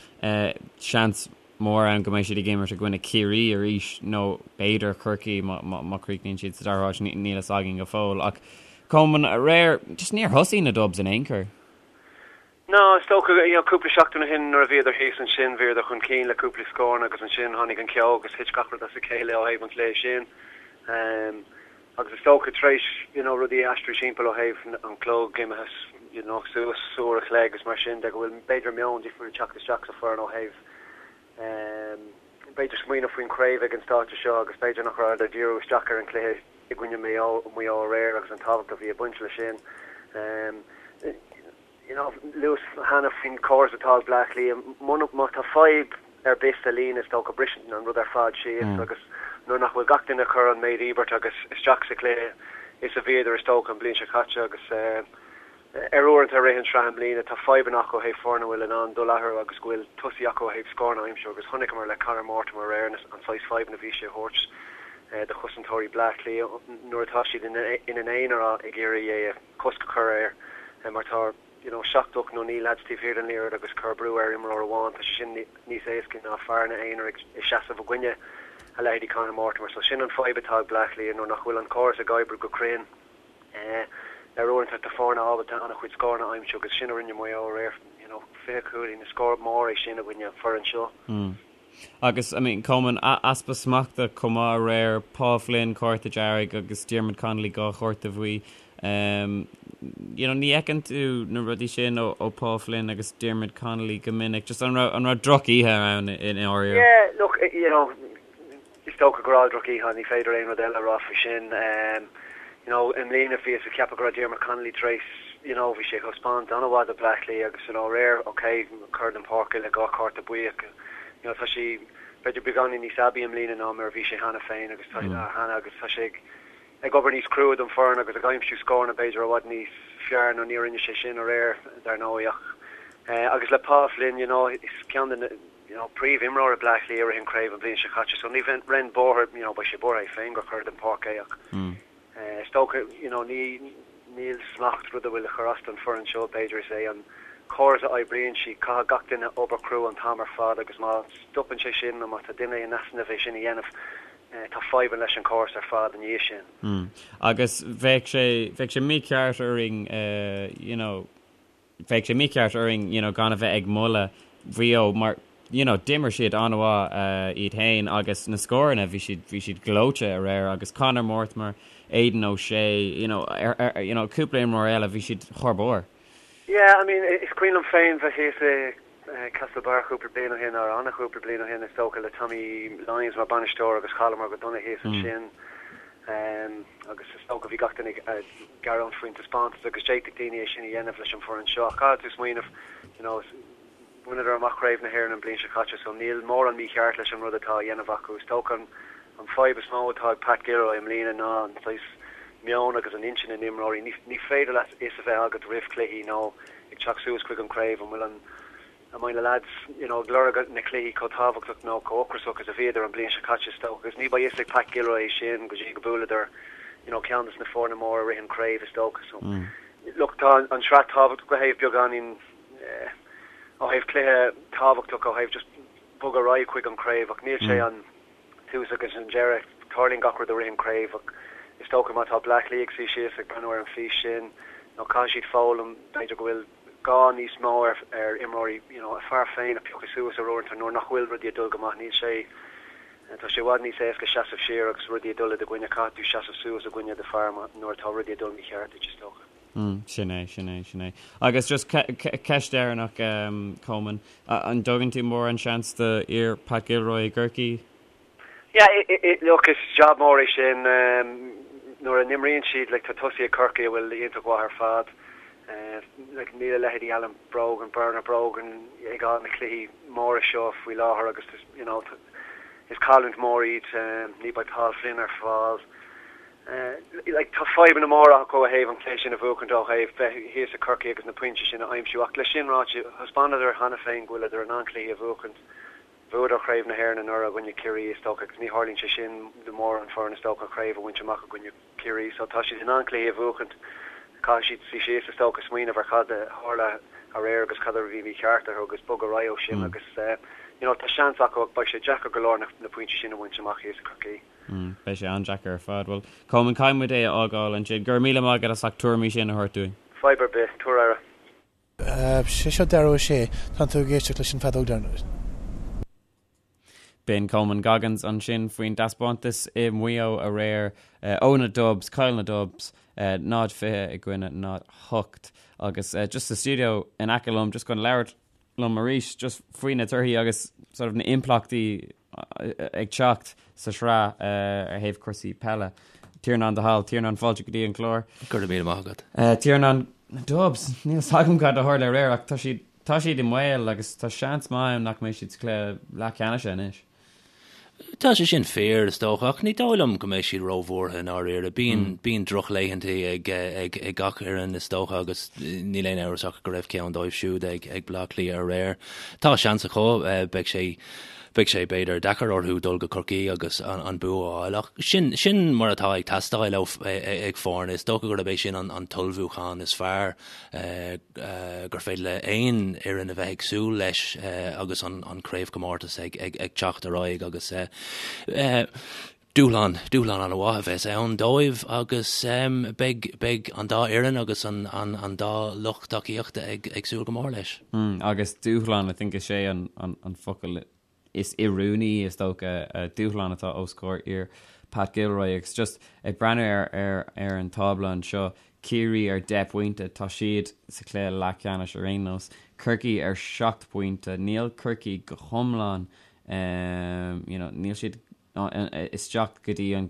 seans mór ann go mbeidh siad ag imirt i gcoinne Ciarraí arís nó b'fhéidir Corcaigh má má má chríochnaíonn siad sa dara háit, níl fhios againn go fóill. Ach Coman aréir just níor thosaigh na Dubs in aon chor. No, is dócha, you know, cúpla seachtain ó shin nuair a bhíodar thíos ansin, bhíodar chun cinn le cúpla scóranna agus ansin tháinig an ceo agus thit gach rud as a chéile ó thaobh an chluiche sin. Um, agus is dócha tar éis, you know, rudaí a aistriú timpeall ó thaobh an clog imithe, you know, suas uair a chloig agus mar sin de go bhfuil b'fhéidir meon difriúil ag teacht isteach sa foireann ó thaobh um, b'fhéidir smaoineamh faoin chraobh ag an stáitse seo agus b'fhéidir nach rabhadar ag díriú isteach ar an chluiche i gcoinne Maigh Eo, Maigh Eo aréir agus an tábhacht a bhí ag baint leis sin. Um, You know, luas cheana faoin chóras atá ag Bleá Cliath, muna, má tá fadhb ar bith sa líne is dócha briseann an rud ar fad síos agus nuair nach bhfuil gach duine ag cur an méid íobairt agus isteach sa chluiche is a bhíodar is dócha an bhliain seo caite agus ar uaireanta i rith an sraith i mbliana tá fadhbanna acu ó thaobh foirne a bhfuil in ann dul eatarthu agus go bhfuil tosaí acu ó thaobh scóranna a aimsiú agus chonaiceamar le Conor Mortimer aréir an saghas fadhbanna a bhí sé a thabhairt do chosantóirí Bleá Cliath nuair atá siad ina n-aonar ag iarraidh é a cosc a chur air mar tá you know 7, 8 nó 9 leaids taobh thiar den liathróid agus cur brú ar imreoir amháin, tá sé sin níos éasca ná fear ina aonar ag seasamh i gcoinne a leithéidí Conor Mortimer. So sin an fadhb atá ag Bleá Cliath nuair nach bhfuil an córas ag oibriú go cruinn. Ar uaireanta tá foirne ábalta an-chuid scóranna a aimsiú agus sin a rinne Maigh Eo aréir, you know 20 cúilín, is scór mór é sin i gcoinne an foireann seo. Agus, I mean, Coman, easpa smachta chomh maith aréir, Paul Flynn, cárta dearg agus Diarmuid Connolly, 2 chárta bhuí. You know, ní fheiceann tú na rudaí sin ó ó Paul Flynn agus Diarmuid Connolly go minic. Just an raibh an raibh droch-oíche ann i ndáiríre? Yeah, look, you know, is dócha go raibh droch-oíche, ní féidir aon rud eile a rá faoi sin. You know, i mbliana bhíothas ag ceapadh go raibh Diarmuid Connolly tar éis, you know, bhí sé ag taispeáint an-mhaith do Bleá Cliath agus, you know, aréir, ok, cur den pháirc le 2 chárta buí ach, you know, tá sé. b'fhéidir beagáinín níos aibí i mbliana ná mar a bhí sé cheana féin agus tá cheana agus tá sé ag ag obair níos crua don foireann agus ag aimsiú scóranna b'fhéidir i bhfad níos fearr nó ní rinne sé sin aréir dar ndóigh ach agus le Paul Flynn you know is ceann de na you know príomh-imreoirí Bleá Cliath i rith an craobh an bhliain seo caite so ní bheinn buartha you know beidh sé buartha é féin gur cur den pháirc é ach is dócha you know ní níl smacht rud a bhfuil ag cur as don foireann seo b'fhéidir is é an córas a oibríonn siad caithfidh gach duine obair crua an t-am ar fad agus má stopann sé sin nó má tá duine in easnamh é sin a dhéanamh tá fadhbanna leis an chóras ar fad ina dhiaidh sin. Mm. Agus bheadh sé, bheadh sé mícheart orainn you know, bheadh sé mícheart orainn you know, gan a bheith ag moladh Mhaigh Eo mar you know, d'imir siad an-mhaith iad féin agus na scóranna, bhí siad, bhí siad gleoite aréir agus Conor Mortimer, Aidan O'Shea, you know, ar, ar, you know, cúpla imreoir eile, bhí siad thar barr. Yeah, I mean, is cuimhin liom féin bheith thíos i Castlebar cúpla bliain ó shin, nó an-chúpla bliain ó shin is dócha, le Tommy Lyons mar bainisteoir agus chailleamar go dona thíos ansin agus is dócha bhí gach duine ag gearán faoin taispeántas agus d'fhéadfadh daoine é sin a dhéanamh leis an bhfoireann seo ach caithfidh tú smaoineamh you know bhaineadar amach Craobh na hÉireann an bhliain seo caite so níl mórán mícheart leis an rud atá á dhéanamh acu. Is dócha an an fadhb is mó atá ag Pat Gilroy i mbliana ná an saghas meon agus an intinn na n-imreoirí. Ní ní féidir leat fhios a bheith agat roimh chluichí nó ag teacht suas chuig an craobh, an bhfuil an, an mbeidh na lads, you know, ag lorg na cluichí chomh tábhachtach nó chomh ocrasach is a bhíodar an bliain seo caite is dócha agus ní beidh fhios ag Pat Gilroy é sin go dtí go buaileadar, you know, ceann des na foirne móra i rith an craobh is dócha. So, look, tá an sraith tábhachtach ó thaobh beagáinín, eh, ó thaobh cluiche tábhachtach ó thaobh just bogadh ar aghaidh chuig an craobh ach níl sé an, tús agus an deireadh. Tarlaíonn gach rud i rith an craobh ach is dócha má tá Bleá Cliath ag suí síos ag breathnú ar an fís sin nó caithfidh siad foghlaim b'fhéidir go bhfuil gá níos mó ar ar imreoirí you know a fear féin a phiocadh suas ar uaireanta nuair nach bhfuil rudaí ag dul go maith. Níl sé tá sé i bhfad níos éasca seasamh siar agus rudaí ag dul i do gcoinne. Caithfidh tú seasamh suas i gcoinne do fear nuair atá rudaí ag dul mícheart duit is dócha. Mm, sin é, sin é, sin é. Agus just ceist deireanach, um, Coleman, an dtugann tú mórán seans do fhir Pat Gilroy i gCorcaigh? Yeah, look, is job mór é sin. Um, nuair a n-imríonn siad, like, tá tosaithe ag Corcaigh a bhfuil iontach mhaith ar fad. Uh, like, níl a leithéidí Alan Brogan, Bernard Brogan ag fáil na cluichí móra seo faoi láthair agus, you know, is cailliúint mór iad. Um, ní beidh Paul Flynn ar fáil. Like, tá fadhbanna móra acu ó thaobh an cluiche sin a bhuachaint, ó thaobh bheith thíos i Corcaigh agus na pointí sin a aimsiú. Ach leis sin ráite, thaispeánadar cheana féin go bhfuileadar in ann cluichí a bhuachaint. Bhuadar Craobh na hÉireann anuraidh i gcoinne Ciarraí, is dócha, agus ní tharlaíonn sé sin do mórán foireann, is dócha, craobh a bhaint amach i gcoinne Ciarraí. So tá siad in ann cluichí a bhuachaint. Caithfidh siad suí síos, is dócha, smaoineamh ar cad a tharla aréir agus cad a bhí mícheart orthu agus bogadh ar aghaidh ó sin agus, you know, tá seans acu ach beidh sé deacair go leor na pointí sin a bhaint amach thíos i Corcaigh. Beidh sé an-deacair ar fad. Bhuel, Coleman, caithfidh muid é a fhágáil ansin. Go raibh míle maith agat as ucht tuairimí sin a thabhairt dúinn. Fadhb ar bith. Tabhair aire. Sé seo deireadh a sé. Tá tú ag éisteacht leis an bhfeadóg deireanach. B'in Coleman Goggins ansin faoin dtaispeántas i Maigh Eo aréir ó na Dubs, chaill na Dubs, 0-20 i gcoinne 0-8. Agus just sa stiúideo in aice liom, just chun labhairt liom arís just faoi na torthaí agus sort of na impleachtaí ag teacht sa sraith ar thaobh cúrsaí peile. Tiarnán de hAll, Tiarnán fáilte go dtí an clár. Go raibh míle maith agat. Tiarnán, na Dubs, níl 's agam cad a tharla aréir ach tá siad, tá siad i mbaol agus tá seans maith ann nach mbeidh siad sa chluiche leathcheannais anois. Tá sé sin fíor, is dócha, ach ní dóigh liom go mbeidh siad róbhuartha i ndáiríre. Bíonn, bíonn drochlaethanta ag, ag, ag gach fhoireann, is dócha, agus níl aon amhras ach go raibh ceann dóibh siúd ag, ag Bleá Cliath aréir. Tá seans acu, beidh sé, beidh sé b'fhéidir deacair orthu dul go Corcaigh agus an, an bua a fháil, ach sin, sin mar atá ag teastáil ó, ag foirne. Is dócha gurb é sin an, an t-ullmhúchán is fearr. gur féidir le aon fhoireann a bheith ag súil leis agus an craobhchomórtas ag teacht ar aghaidh agus dúshlán, dúshlán an-mhaith a bheas ann dóibh agus beidh, beidh an dá fhoireann agus an dá lucht tacaíochta ag súil go mór leis. Agus dúshlán, I think is é an focal is oiriúnaí, is dócha, dúshlán atá os comhair fhir Pat Gilroy agus just ag breathnú ar ar ar an tábla anseo, Ciarraí ar 10 bpointe, tá siad sa chluiche leathcheannais ar aon nós, Corcaigh ar 7 bpointe, níl Corcaigh go hiomlán you know níl siad isteach go dtí an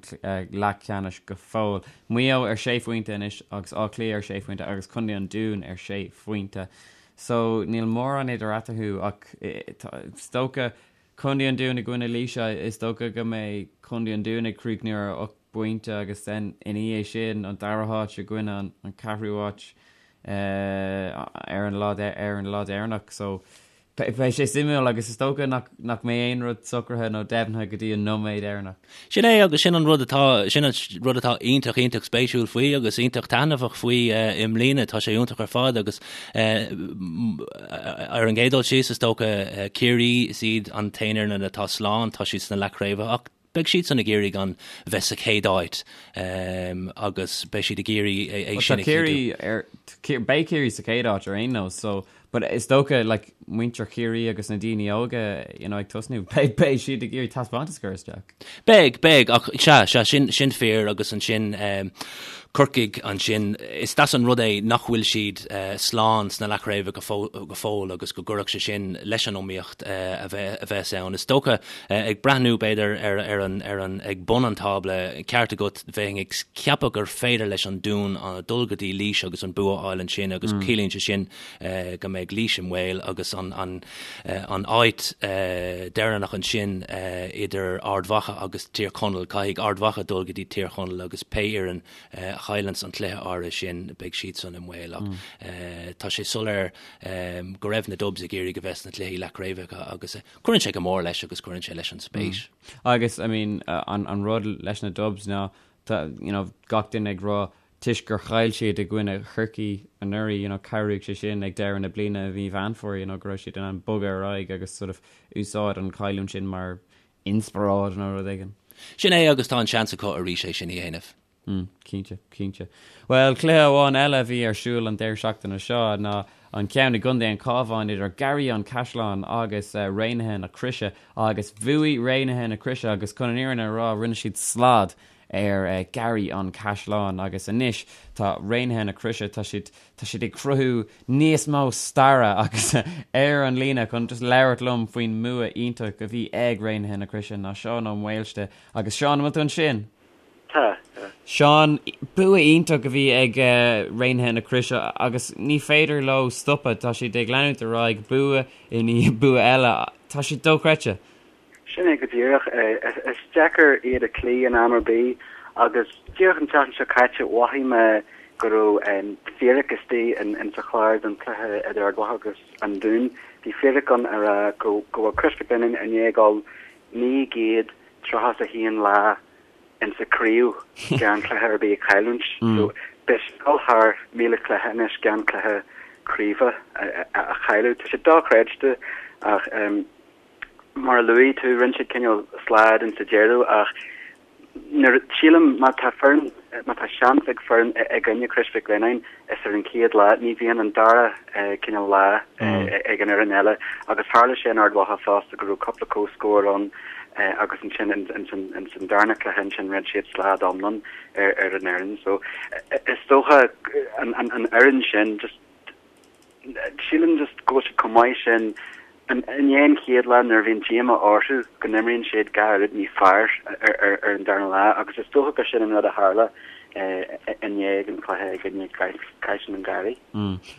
leathcheannais go fóill. Maigh Eo ar sé phointe anois agus Áth Cliath ar sé phointe agus Contae an Dúin ar sé phointe. So níl mórán idir eatarthu ach is dócha Contae an Dúin i gcoinne Laoise, is dócha go mbeidh Contae an Dúin ag críochnú ar 8 bpointe agus then ina dhiaidh sin an dara háit i gcoinne an ceathrú háit ar an lá ar an lá deireanach. So beidh sé suimiúil agus is dócha nach nach mbeidh aon rud socraithe nó deimhnithe go dtí an nóiméad deireanach. Sin é agus sin an rud atá sin an rud atá iontach iontach spéisiúil faoi agus iontach taitneamhach faoi i mbliana. Tá sé iontach ar fad agus ar an gcéad dul síos is dócha Ciarraí is iad an t-aon fhoireann atá slán, tá siad sna leathchraobhacha ach beidh siadsan ag iarraidh gan bheith sa chéad áit agus beidh siad ag iarraidh é sin a chinntiú. Beidh Ciarraí sa chéad áit ar aon nós so but is dócha like muintir Chiarraí agus na daoine óga you know ag tosnú beidh beidh siad ag iarraidh taispeántas a chur isteach. Beidh, beidh ach sea, sea sin sin fíor agus ansin Corcaigh ansin is deas an rud é nach bhfuil siad slán sna leathchraobhacha go fóill agus go gcuirfeadh sé sin leis an iomaíocht a bheas ann. Is dócha, ag breathnú b'fhéidir ar ar an ar an ag bun an tábla, ceart agat, bheinn ag ceapadh gur féidir leis an Dún dul go dtí Laois agus an bua a fháil ansin agus ciallaíonn sé sin go mbeidh Laois i mbaol agus an an an áit deireanach ansin idir Ard Mhacha agus Tír Chonaill. Caithfidh Ard Mhacha dul go dtí Tír Chonaill agus pé fhoireann a chailleanns an cluiche áirithe sin beidh siadsan i mbaol ach tá sé soiléir go raibh na Dubs ag iarraidh a bheith sna cluichí leathchraobhacha agus cuireann sé go mór leis agus cuireann sé leis an spéis. Agus I mean an rud leis na Dubs ná tá you know gach duine ag rá toisc gur chaill siad i gcoinne Chorcaí anuraidh, you know, cabhraigh sé sin ag deireadh na bliana i mí Mheán Fómhair, you know, go raibh siad in ann bogadh ar aghaidh agus sort of úsáid an chailliúint sin mar inspioráid nó rud éigin. Sin é agus tá an seans acu arís é sin a dhéanamh. Mm, cinnte, cinnte. Bhuel, cluiche amháin eile a bhí ar siúl an deireadh seachtaine seo ná an ceann i gContae an Chabháin idir Garraí an Chaisleáin agus Raonaithe na Croise agus bhuaigh Raonaithe na Croise agus chun an fhírinne a rá rinne siad slad ar Garraí an Chaisleáin agus anois tá Raonaithe na Croise, tá siad, tá siad ag cruthú níos mó staire agus ar an líne chun just labhairt liom faoin mbua iontach a bhí ag Raonaithe na Croise ná Seán Ó Maoilste agus Seán, an bhfuil tú ansin? Tá, tá. Seán, bua iontach a bhí ag Raonaithe na Croise agus ní féidir leo stopadh, tá siad ag leanúint ar aghaidh, bua i ndiaidh bua eile, tá siad dochreidte. Sin é go díreach. Is deacair iad a chloí in am ar bith agus díreach an tseachtain seo caite mhothaigh mé go raibh fíric istigh in sa chlár don chluiche idir Ard Mhacha agus an Dún. Bhí fíric ann a rá go bhfuil Crois Mhic Lionnáin i ndiaidh dul 931 lá in sa craobh gan cluiche ar bith a chailliúint. So beidh siad ag dul thar 1,000 cluiche anois gan cluiche craoibhe a chailleadh. Tá sé dochreidte ach Mar a luaigh tú, rinne siad cineál slad in sa deireadh ach nuair, sílim, má tá foireann, má tá seans ag foireann i gcoinne Crois Mhic Lionnáin, is ar an chéad lá, ní bhíonn an dara cineál lá ag an fhoireann eile agus tharla sé in Ard Mhacha fosta go raibh cúpla comhscór ann agus ansin in san darna cluiche ansin rinne siad slad iomlán ar an fhoireann. So is dócha an fhoireann sin just Sílim just go bhfuil siad chomh maith sin i ndiaidh an chéad lá nuair a bhíonn díomá orthu go n-imríonn siad dhá oiread níos fearr ar an darna lá agus is dócha gur sin an rud a tharla inné ag an chluiche i gcoinne Caisleán an Gharraí.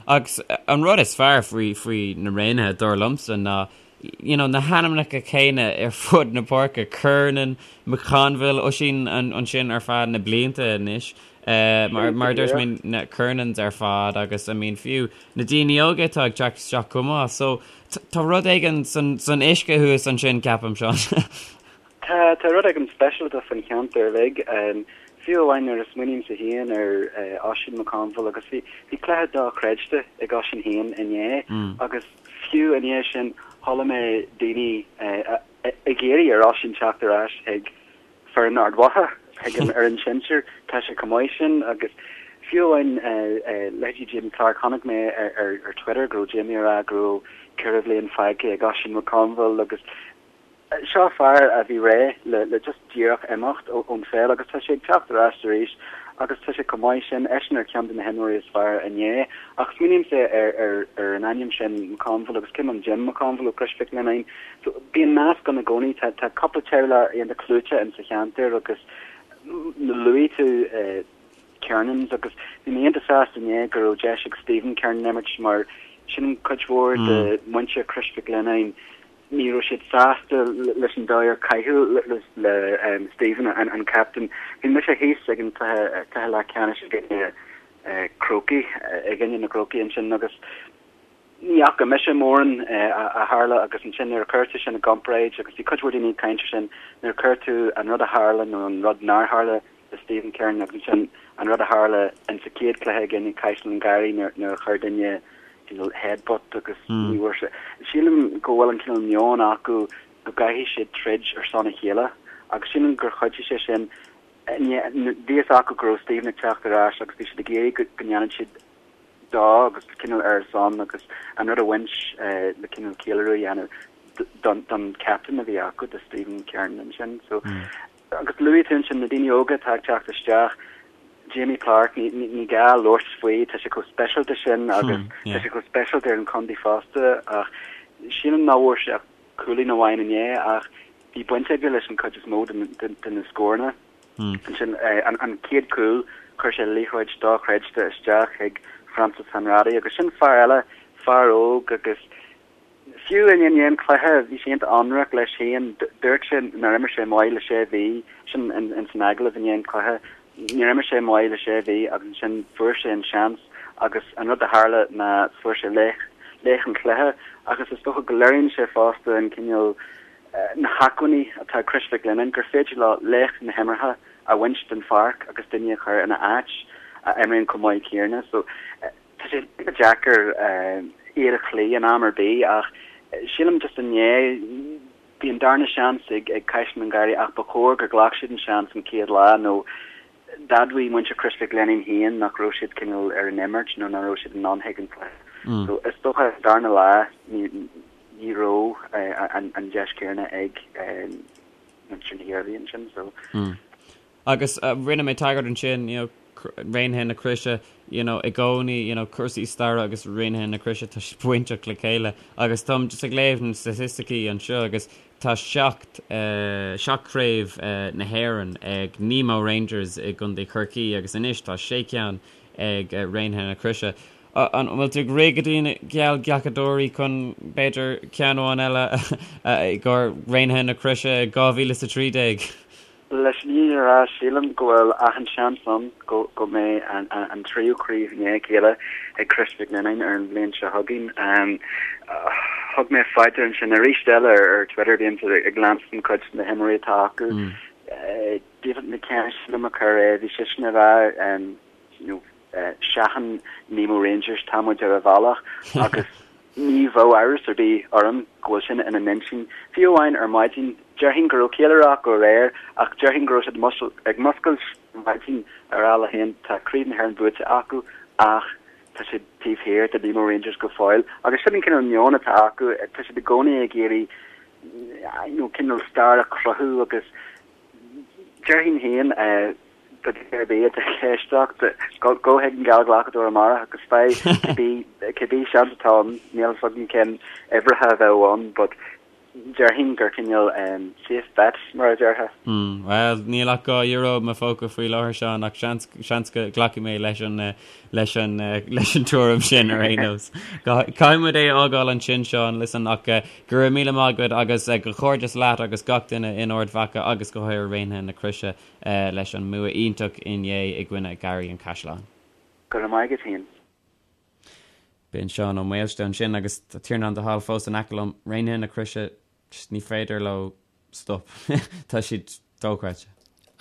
Agus an rud is fearr faoi faoi na Raonaithe, dar liomsa, ná you know, na hainmneacha céanna ar fud na páirce, Kernan, McConville, Oisín ansin ar feadh na blianta anois. Mar mar a dúirt mé na Kernans ar fad agus I mean fiú na daoine óga atá ag teacht isteach chomh maith. So tá rud éigin san san uisce thuas ansin ceapaim Seán. Tá tá rud éigin speisialta faoin cheantar uilig. Fiú amháin nuair a smaoinímse féin ar Oisín McConville agus bhí bhí cluiche dochreidte ag Oisín féin inné agus Fiú i ndiaidh sin, chuala mé daoine ag iarraidh ar Oisín teacht ar ais chuig foireann Ard Mhacha, chuig an fhoireann sinsir. Tá sé chomh maith sin agus fiú amháin leithéidí Jamie Clarke, chonaic mé ar Twitter go raibh Jamie ag rá go raibh 4 bhliain fágtha ag Oisín McConville agus Seo fear a bhí réidh le just díreach imeacht ón pheil agus tá sé ag teacht ar ais arís agus tá sé chomh maith sin, eisean ar cheann de na himreoirí is fearr inné. Ach smaoinímse ar ar an ainm sin McConville agus cé an Jim McConville ó Chrois Mhic Lionnáin. So bíonn nasc ann i gcónaí, tá tá cúpla teaghlach iontach clúiteach in sa cheantar agus luaigh tú Kernans agus bhí mé iontach sásta inné go raibh deis ag Stephen Kernan imirt mar sin cuid mhór de mhuintir Chrois Mhic Lionnáin. Ní raibh siad sásta leis an dóigh ar caitheadh le Stephen, an captain. Bhí mise thíos ag an cluiche leathcheannais i gcoinne Crócaigh, i gcoinne na gCrócaigh ansin agus ní fhaca mise mórán a tharla agus ansin nuair a chuir tú sin i gcomparáid agus bhí cuid mhór daoine ag caint ar sin, nuair a chuir tú an rud a tharla nó an rud nár tharla le Stephen Kernan agus ansin an rud a tharla in sa chéad chluiche i gcoinne Caisleán an Gharraí nuair a chuir duine cineál headbutt agus ní bhfuair sé. Sílim go bhfuil an cineál meon acu go gcaithfidh siad troid ar son a chéile agus sílim gur chuidigh sé sin. Bhí a fhios acu go raibh Stephen ag teacht ar ais agus bhí siad ag iarraidh go ndéanfadh siad dó agus cineál ar a son agus an rud a bhaint le cineál ceiliúradh a dhéanamh don captain a bhí acu, do Stephen Kernan ansin. So Agus luaigh tú ansin na daoine óga atá ag teacht isteach, Jamie Clarke, ní gá labhairt faoi, tá sé chomh speisialta sin agus tá sé chomh speisialta ar an chontae fosta ach sílim nach bhfuair sé ach cúilín amháin inné ach bhí baint aige leis an chuid is mó de na scóranna. Ansin an chéad chúl, chuir sé liathróid dochreidte isteach chuig Francis Hanratty agus sin fear eile, fear óg agus Fiú i ndiaidh an chluiche, bhí sé iontach ionraic leis féin. Dúirt sé nár imir sé maith le sé mhí, sin ins an agallamh i ndiaidh an chluiche, níor imir sé maith le sé mhí agus ansin fuair sé an seans agus an rud a tharla ná fuair sé laoch, laoch an chluiche agus is dócha go léiríonn sé fosta an cineál, na hacmhainní atá ag Crois Mhic Lionnáin gur féidir leo laoch na himeartha a bhaint den pháirc agus duine a chur ina áit a imríonn chomh maith céanna. So. Tá sé deacair iad a chloí in am ar bith ach sílim just inné bhí an darna seans ag Caisleán an Gharraí ach ba chóir gur ghlac siad an seans an chéad lá nó d'admhaigh muintir Chrois Mhic Lionnáin féin nach raibh siad cineál ar an imirt nó nach raibh siad in ann chuig an cluiche. So is dócha an darna lá ní raibh an deis céanna ag muintir na hIarmhí ansin. So. Agus rinne mé tagairt ansin, you know, Raonaithe na Croise, you know, i gcónaí, you know, cúrsaí staire agus Raonaithe na Croise, tá siad bainteach le chéile. Agus táim just ag léamh na staitisticí anseo agus tá seacht, seacht craobh na hÉireann ag Nemo Rangers i gContae Chorcaí agus anois tá sé ceann ag Raonaithe na Croise. An bhfuil tú ag rith go dtí na geallghlacadóirí chun, b'fhéidir, ceann amháin eile i gcomhair Raonaithe na Croise 2013? Leis an fhírinne a rá, sílim go bhfuil achan seans ann go go mbeidh an tríú craobh i ndiaidh a chéile ag Crois Mhic Lionnáin ar an bhliain seo chugainn. Thug mé faoi deara ansin arís eile ar Twitter, bímse ag leanstan cuid de na himreoirí atá acu. David McKenna sílim a chuir é, bhí seisean ag rá you know, Seachain Nemo Rangers, tá muid ar an bhealach agus ní bheadh amhras ar bith orm go bhfuil sin ina n-intinn. Fiú amháin ar maidin, déarfainn go raibh ceiliúradh acu aréir ach déarfainn go raibh siad ag muscailt ar maidin ag rá leo féin tá Craobh na hÉireann buaite acu ach tá siad taobh thiar de Nemo Rangers go fóill. Agus sin an cineál meon atá acu, tá siad i gcónaí ag iarraidh you know, cineál stair a chruthú agus Déarfainn féin, do dhuine ar bith atá ag éisteacht, gabh chuig an geallghlacadóir amárach agus faigh cibé cibé seans atá ann, níl fhios agam cén uimhreacha a bheadh ann but déarfainn gur cineál safe bet mar a déarfá. Bhuel, níl ach €2 i mo phóca faoi láthair, Seán, ach seans seans go nglacfaidh mé leis an leis an leis an tuairim sin ar aon nós. Caithfidh muid é a fhágáil ansin, Seán, listen, ach Go raibh míle maith agat agus comhghairdeas leat agus gach duine in Ard Mhacha agus go háirithe Raonaithe na Croise leis an mbua iontach inné i gcoinne Garraí an Chaisleáin. Go raibh maith agat féin. B'in Seán Ó Maoilste ansin agus tá Tiarnán de hAll fós in aice liom. Raonaithe na Croise, just ní féidir leo stop. Tá siad dochreidte.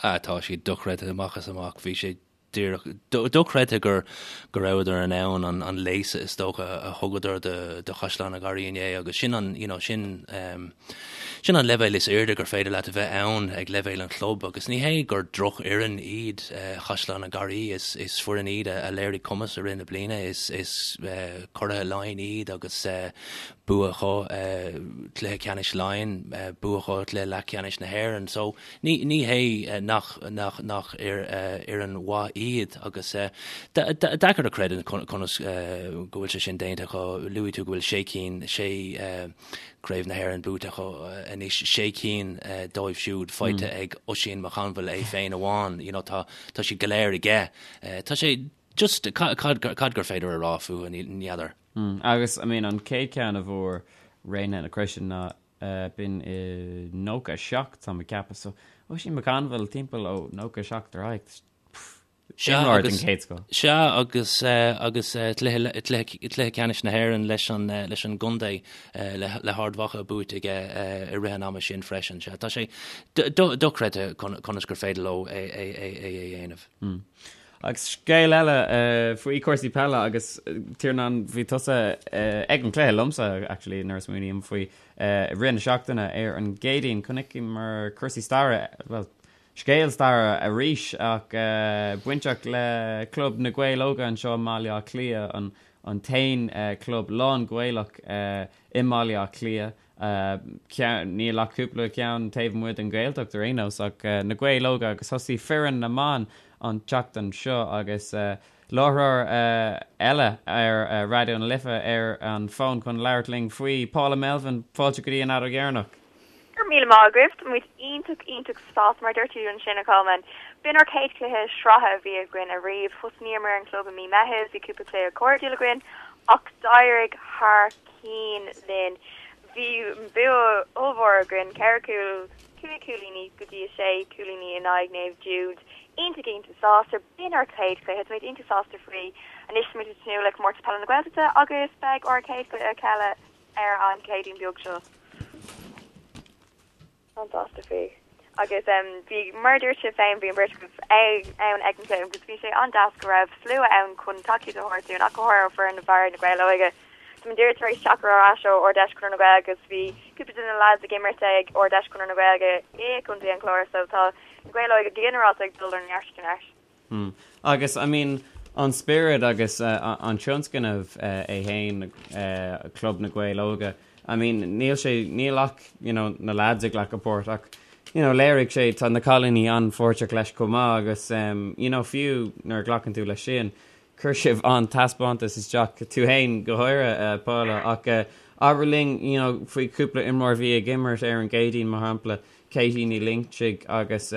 Ah, tá siad dochreidte amach is amach. Bhí sé díreach dochreidte gur go rabhadar in ann an an léasadh is dócha a thugadar do do Chaisleán an Gharraí inné agus sin an you know sin um, sin an leibhéal is airde gur féidir leat a bheith ann ag leibhéal an chlub agus ní hé gur drochfhoireann iad uh, Chaisleán an Gharraí is is foireann iad a, a léirigh cumas i rith na bliana is is uh, curaithe Laighean iad agus uh, bua acu uh, cluiche ceannais Laighean uh, bua acu cluiche leathcheannais na hÉireann so Ní, ní hé nach, nach, nach fhoireann mhaith iad agus deacair a chreidiúint conas go bhfuil sé sin déanta acu. Luaigh tú go bhfuil sé cinn, sé Craobh na hÉireann buaite acu anois, sé cinn dóibh siúd faighte ag Oisín McConville é féin amháin. You know, tá, tá siad go léir aige. Tá sé just, cad, cad gur féidir a rá fúthu, ní fheadar. Agus, I mean, an chéad cheann a bhfuair Raonaithe na Croise ná. B'in i 97, tá mé ag ceapadh. So, Oisín McConville timpeall ó 97 ar aghaidh. Sea, Imreoir den agus, chéad scoth. sea, agus, agus cluiche, cluiche, cluiche ceannais na hÉireann leis an, leis an gcontae, le, le hArd Mhacha buaite aige i rith an ama sin freisin. Sea, tá sé dochreidte conas gur féidir leo é, é, é, é a dhéanamh. Agus scéal eile faoi chúrsaí peile agus Tiarnán bhí tusa ag an cluiche liomsa actually nuair a smaoiním faoi i rith na seachtaine ar an gCéadaoin chonaiceamar cúrsaí staire, bhuel scéal staire arís ach bainteach le Club na Gaeil Óga anseo i mBaile Átha Cliath, an an t-aon club lán-Ghaelach i mBaile Átha Cliath. Níl ach cúpla ceann taobh amuigh den Ghaeltacht ar aon nós ach na Gaeil Óga agus thosaigh foireann na mban an tseachtain seo agus láithreoir eile ar Raidió na Life ar an bhfón chun labhairt linn faoi, Paula Melvin, fáilte go dtí an Fheadóg Dheireanach. Go raibh míle maith agaibh, tá muid iontach iontach sásta mar a dúirt tú ansin a Cholmáin. B'in ár chéad chluiche sraithe a bhí againn ariamh. Thosnaíomar an club i mí Meitheamh, bhí cúpla cluiche cairdiúil againn ach d'éirigh thar cinn linn. Bhí bua ollmhór againn, 4 cúl, 5 cúilíní go dtí 6 cúilíní in aghaidh Naomh Jude. Iontach iontach sásta. B'in ár chéad chluiche, táimid iontach sásta faoi. Anois táimid ag tnúth le Comórtas Peile na Gaeltachta agus beidh ár chéad chluiche eile ar an Chéadaoin beag seo. An-sásta faoi. Agus bhí, mar a dúirt sibh féin, bhí an bheirt agaibh ann ag an gcluiche agus bhí sé an-deas go raibh slua ann chun tacaíocht a thabhairt dúinn ach go háirithe ó foireann na bhfear na Gaeil Óige. Tá muid díreach tar éis teacht ar ais ó Ard-Fheis Chonradh na Gaeilge agus bhí cúpla de na lads ag imirt ag Ard-Fheis Chonradh na Gaeilge i gContae an Chláir so tá na Gaeil Óige go ginearálta ag dul ó neart go neart. Hmm. Agus, I mean, an spiorad agus an tionscnamh é féin, Club na Gaeil Óga, I mean, níl sé, níl ach, you know, na lads ag glacadh páirt ach, you know, léirigh sé, tá na cailíní an-pháirteach leis chomh maith agus, you know, fiú nuair a ghlacann tú leis sin, chuir sibh an-taispeántas isteach, tú féin go háirithe, Paula, ach abair linn, you know, faoi chúpla imreoir a bhí ag imirt ar an gCéadaoin, mar shampla, Katie Ní Loingsigh agus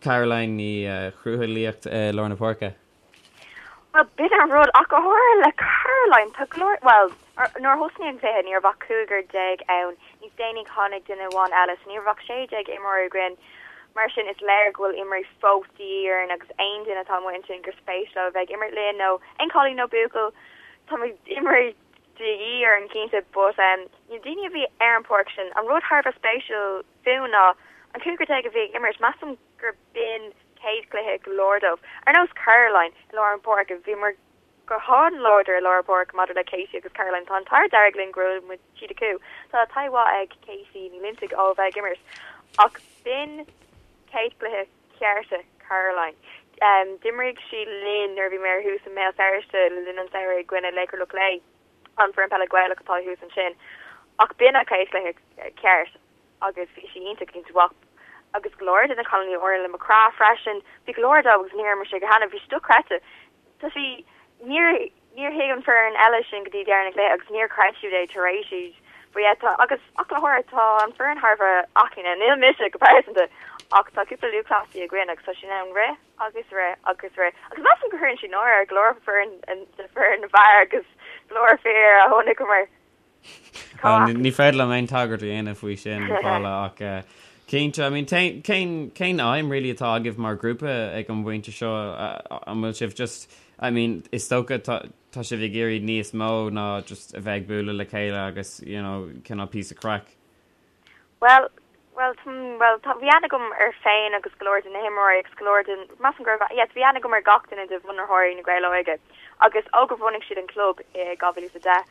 Caroline Ní Chrualaoich i lár na páirce. Bhuel, b'in an rud, ach go háirithe le Caroline, tá go leor, bhuel, nuair a thosnaigh an cluiche ní raibh ach cúigear déag ann, níos déanaí tháinig duine amháin eile, so ní raibh ach 16 imreoir againn, mar sin is léir go bhfuil imreoirí fós de dhíth orainn agus aon duine atá amuigh ansin gur spéis leo a bheith ag imirt linn nó aon cailín nó buachaill, tá muid imreoirí de dhíth orainn cinnte, but na daoine a bhí ar an pháirc sin, an rud thar a bheith spéisiúil, fúthu ná an cúigear déag a bhí ag imirt, measaim gur b'in céad chluiche go leor dóibh. Ar nós Caroline i lár an pháirce, bhíomar go han-láidir i lár an pháirce maidir le Katie agus Caroline. Tá an t-ádh dearg linn go raibh muid siad acu. Tá taithí mhaith ag Katie Ní Loinsigh ó bheith ag imirt ach b'in céad chluiche cearta Caroline. D'imrigh sí linn nuair a bhí mé ar thuas i mBéal Feirste le linn an tsamhraidh i gcoinne Laochra Loch Lao, an foireann peile Gaelach atá thuas ansin. Ach b'in a céad chluiche ceart. agus bhí sí iontach iontach mhaith agus go leor de na cailíní Orla McCraith freisin, bhí go leor dóibh agus níor imir siad cheana, bhí sé dochreidte. Tá sí, níor, níor thuig an foireann eile sin go dtí deireadh na cluiche agus níor chreid siad é tar éis iad. But yeah, tá, agus ach le háirithe tá an foireann thar a bheith aclaí, níl mise go pearsanta ach tá cúpla lúthchleasaí againn agus tá siad in ann rith agus rith agus rith agus measaim go gcuireann siad náire ar go leor foireann, de foireann na bhfear agus go leor fir a chonaiceamar. Ní féidir liom aon tagairt a dhéanamh faoi sin, Paula, ach cinnte, I mean, cén, cén aidhm really atá agaibh mar ghrúpa ag an bpointe seo? An bhfuil sibh just, I mean, is dócha tá, tá sibh ag iarraidh níos mó ná just a bheith ag bualadh le chéile agus, you know, cineál píosa craic. Bhuel, bhuel, bhuel, tá, bhí aithne agam air féin agus go leor de na himreoirí agus go leor den, measaim go raibh, yes, bhí aithne agam ar gach duine de bhunaitheoirí na Gaeil Óige agus ó gur bhunaigh siad an club i 2010,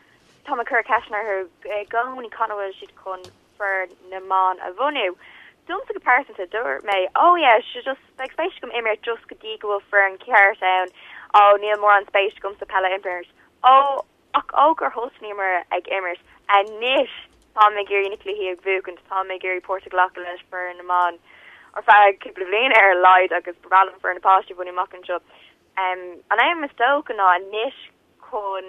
táim ag cur ceisteanna orthu i gcónaí cathain a bhfuil siad chun foireann na mban a bhunú. Domsa go pearsanta, dúirt mé, oh yeah, sure just, beidh spéis agam imirt just go dtí go bhfuil foireann ceart ann, oh níl mórán spéis agamsa peil a imirt, oh, Ach ó gur thosnaíomar ag imirt, anois táim ag iarraidh na cluichí a bhuachaint, táim ag iarraidh páirt a ghlacadh leis foireann na mban ar feadh cúpla bliain ar a laghad agus ba bhreá liom foireann na páistí a bhunú amach anseo. An aidhm is dócha ná anois chun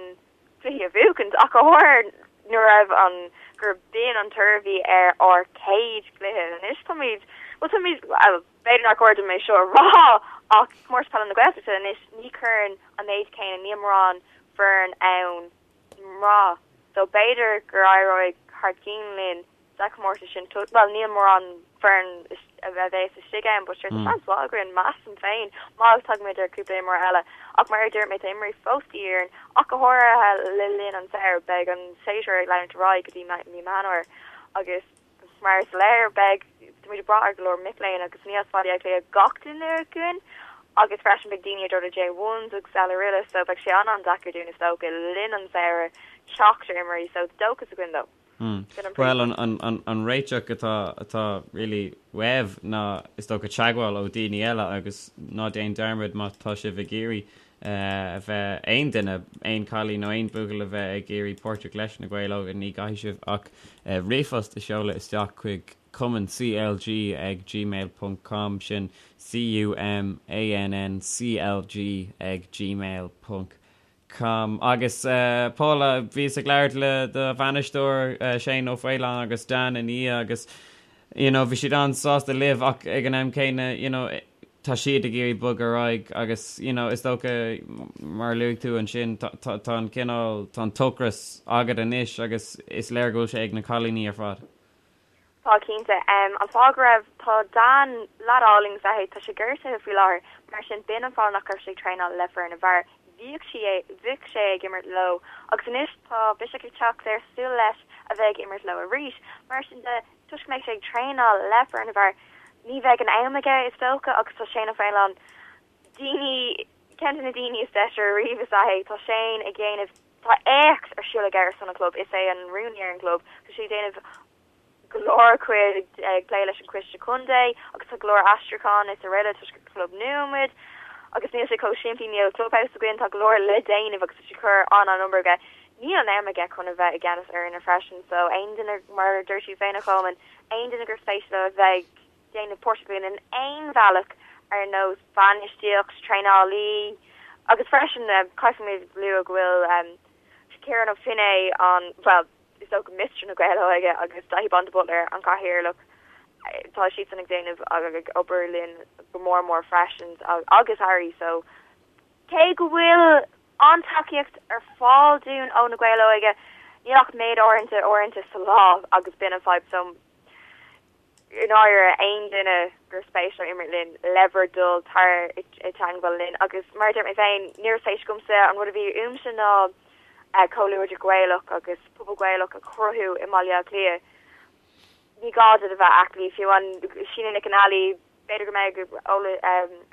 cluichí a bhuachaint ach go háirithe nuair a raibh an, gur b'in an toradh a bhí ar ár chéad chluiche. Anois táimid, bhuel táimid, bhuel, B'fhéidir nár chóir dom é seo a rá ach Comórtas Peile na Gaeltachta anois ní chuireann an méid céanna, níl mórán foireann ann mná so b'fhéidir gur éireoidh thar cinn linn. Sa chomórtas sin, bhuel, níl mórán foireann a bheas istigh ann, but sure, tá seans mhaith againn, measaim féin, má tagaimid ar cúpla imreoir eile. Ach mar a dúirt mé, tá imreoirí fós de dhíth orainn, ach go háirithe le linn an tsamhraidh, beidh an séasúr ag leanúint ar aghaidh go dtí mí Meán Fhómhair agus mar is léir, beidh, táimid ag brath ar go leor mic léinn agus ní as Baile Átha Cliath gach duine againn agus freisin beidh daoine ag dul ar J1s agus eile araile so beidh sé an-an-deacair dúinn is dócha le linn an tsamhraidh teacht ar imreoirí so dóchas againn though. Bhuel, an réiteach atá atá really uaibh ná is dócha teagmháil ó daoine eile agus ná déan dearmad má tá sibh ag iarraidh a bheith, aon duine, aon cailín nó aon buachaill a bheith ag iarraidh páirteach leis na Gaeil Óga ní gcaithfidh sibh ach ríomhphost a sheoladh isteach chuig cumann CLG ag gmail ponc com sin C-U-M-A-N-N-C-L-G ag gmail ponc com. Agus Paula, bhíos ag labhairt le do bhainisteoir Shane Ó Faoláin agus Dan ina dhiaidh agus you know bhí siad an-sásta libh ach ag an am céanna you know tá siad ag iarraidh bogadh ar aghaidh agus you know is dócha mar a luaigh tú ansin tá tá tá an cineál tá an t-ocras agat anois agus is léir go bhfuil sé ag na cailíní ar fad. Tá cinnte. An fáth go raibh, tá Dan, leaid álainn is ea é, tá sé gortaithe faoi láthair, mar sin b'in an fáth nach raibh sé ag traenáil le foireann na bhfear. Bhíodh sé, bhíodh sé ag imirt leo agus anois tá biseach ag teacht air súil leis a bheith ag imirt leo arís. Mar sin de, toisc go mbeidh sé ag traenáil le foireann na bhfear, ní bheidh an am aige is dócha agus tá Shane Ó Faoláin, daoine, ceann de na daoine is deise ariamh is ea é, tá Shane ag déanamh, tá éacht ar siúl aige ar son an chlub, is é an rúnaí ar an gclub, tá sé ag déanamh go leor cuid ag plé leis an Coiste Contae agus tá go leor aistriúchán is araile toisc gur club nua muid agus níl sé chomh simplí, níl clubhouse againn, tá go leor le déanamh agus tá sé ag cur an-an-obair aige. Níl an am aige chun a bheith i gceannas ar fhoirne freisin so aon duine, mar a dúirt tú féin a Cholmáin, aon duine gur spéis leo a bheith ag déanamh páirteach linn in aon bhealach ar nós bainistíocht, traenálaí agus freisin caithfimid lua go bhfuil Ciarán Ó Finneadha an, bhuel, is dócha Mister na Gaeil Óige agus Daithí Bán de Buitléar, an cathaoirleach, tá siadsan ag déanamh agus ag obair linn go mór mór freisin agus Harry so cé go bhfuil an-tacaíocht ar fáil dúinn ó na Gaeil Óige níl ach méid áirithe uaireanta sa lá agus b'in an fadhb so i ndáiríre, aon duine gur spéis leo imirt linn, le bhur dtoil, tar i dteangmháil linn. Agus mar a dúirt mé féin, ní raibh spéis agamsa, an rud a bhí uaimse ná comhluadar Gaelach agus pobal Gaelach a chruthú i mBaile Átha Cliath. Ní gá duit a bheith aclaí, fiú amháin Síne Nic an Ailí, b'fhéidir go mbeidh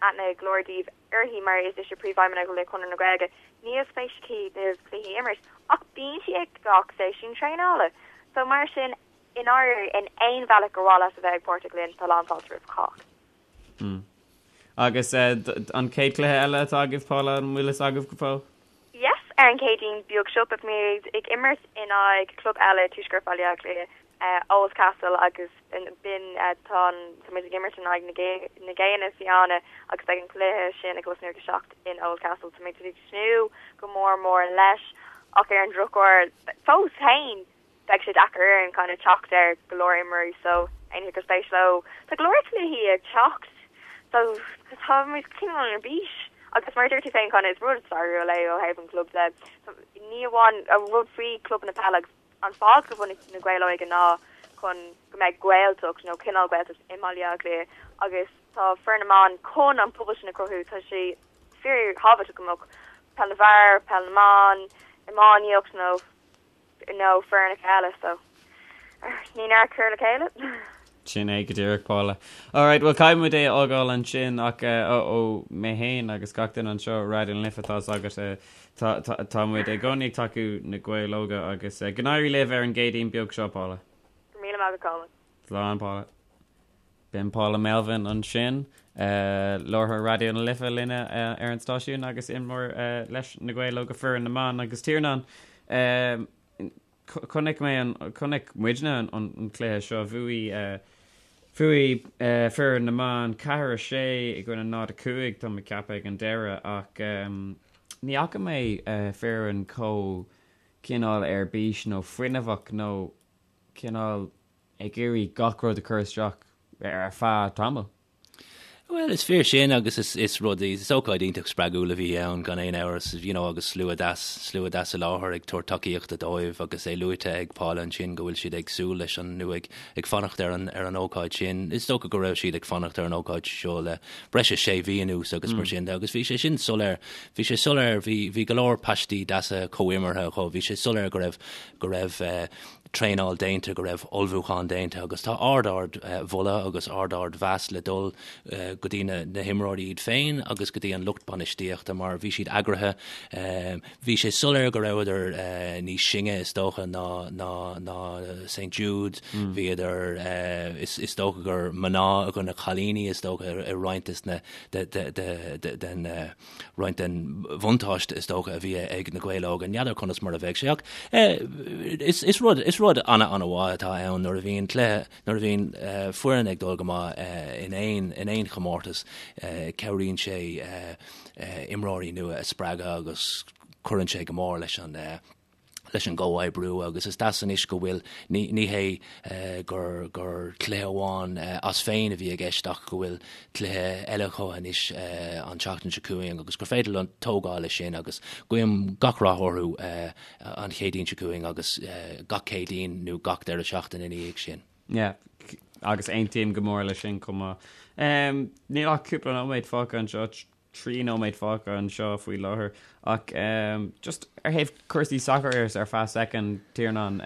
aithne ag go leor daoibh uirthi mar is ise príomhfheidhmeannach le Conradh na Gaeilge. Níl spéis aici na cluichí a imirt, ach bíonn sí ag gach seisiún traenála. So mar sin, I ndáiríre, in aon bhealach gur mhaith leat a bheith ag páirteach linn, tá lánfháilte roimh chách. Mm. Agus an chéad cluiche eile atá agaibh, Paula, an bhfuil fhios agaibh go fóill? Yes, ar an Chéadaoin beag seo beidh muid ag imirt in aghaidh club eile Tuaisceart Bhaile Átha Cliath, Oldcastle agus b'in tá an tá muid ag imirt in aghaidh na na Géanna Fiáine agus beidh an cluiche sin ag tosnú ag 7 in Oldcastle. Tá muid ag tnúth go mór mór leis ach ar an drochuair fós féin beidh sé deacair orainn kind of teacht ar go leor imreoirí so éinne gur spéis leo tá go leor cluichí ag teacht so tá muid cineál ar bís agus mar a dúirt tú féin kind of is rud stairiúil é ó thaobh an chlub de ní amháin an rud faoi clubanna peile agus an fáth gur bhunaigh na Gaeil Óige ná chun go mbeidh Gaeltacht nó cineál Gaeltacht i mBaile Átha Cliath agus tá foireann na mban chun an pobal sin a chruthú tá sé fíor thábhachtach go mbeadh peil na bhfear, peil na mban, iománaíocht nó nó foirneacha eile so ní neart cur le chéile. Sin é go díreach, Paula. Alright, bhuel caithfidh muid é a fhágáil ansin ach ó mé féin agus gach duine anseo i Raidió na Life tá fhios agat tá tá tá muid i gcónaí ag tacú na Gaeil Óga agus go n-éirí libh ar an gCéadaoin beag seo, Paula. Go raibh míle maith agat, Colm. Slán, Paula. B'in Paula Melvin ansin, láithreoir Raidió na Life linne ar an stáisiún agus imreoir leis na Gaeil Óga foireann na mban agus Tiarnán. Chonaic mé an, chonaic muidne an cluiche seo, bhuaigh, bhuaigh foireann na mban 4, 6 i gcoinne 0, 5 tá mé ag ceapadh ag an deireadh ach ní fhaca mé foireann chomh cineál ar bís nó fuinneamhach nó cineál ag iarraidh gach rud a chur isteach ar feadh tamaill. Bhuel, is fíor sin agus is, is rud, is ócáid iontach spreagúil a bhí ann gan aon amhras, you know, agus slua deas, slua deas i láthair ag tabhairt tacaíochta dóibh agus é luaite ag Paula ansin go bhfuil siad ag súil leis an, nó ag, ag fanacht ar an, ar an ócáid sin. Is dócha go raibh siad ag fanacht ar an ócáid seo le breis is sé mhí anuas agus mar sin de agus bhí sé sin soiléir, bhí sé soiléir, bhí, bhí go leor paistí deasa comhimeartha acu, bhí sé soiléir go raibh, go raibh eh, traenáil déanta, go raibh ullmhúchán déanta agus tá ard-ard mholadh agus ard-ard mheas le dul go dtí na himreoirí iad féin agus go dtí an lucht bainistíochta mar bhí siad eagraithe. Bhí sé soiléir go rabhadar níos sine is dócha ná ná ná St Jude, bhíodar is dócha gur mná i gcoinne cailíní is dócha i roinnt des na den roinnt den bhuntáiste is dócha a bhí ag na Gaeil Óga. N'fheadar conas mar a bheidh sé ach is is rud is rud ana-ana-mhaith atá ann nuair a bhíonn cluiche nuair a bhíonn foireann ag dul go maith in aon in aon chomórtas cabhraíonn sé imreoirí nua a spreagadh agus cuireann sé go mór leis an leis an gcomhoibriú agus is deas anois go bhfuil, ní, ní hé gur, gur cluiche amháin as féin a bhí i gceist ach go bhfuil cluiche eile acu anois an tseachtain seo chugainn agus gur féidir leo tógáil leis sin agus guím gach rath orthu an Chéadaoin seo chugainn agus gach Céadaoin nó gach deireadh seachtaine ina dhiaidh sin. Yeah, agus aontaím go mór leis sin chomh maith. Níl ach cúpla nóiméad fágtha anseo, 3 nóiméad fágtha anseo faoi láthair ach just ar thaobh cúrsaí sacair ar feadh soicind, Tiarnán,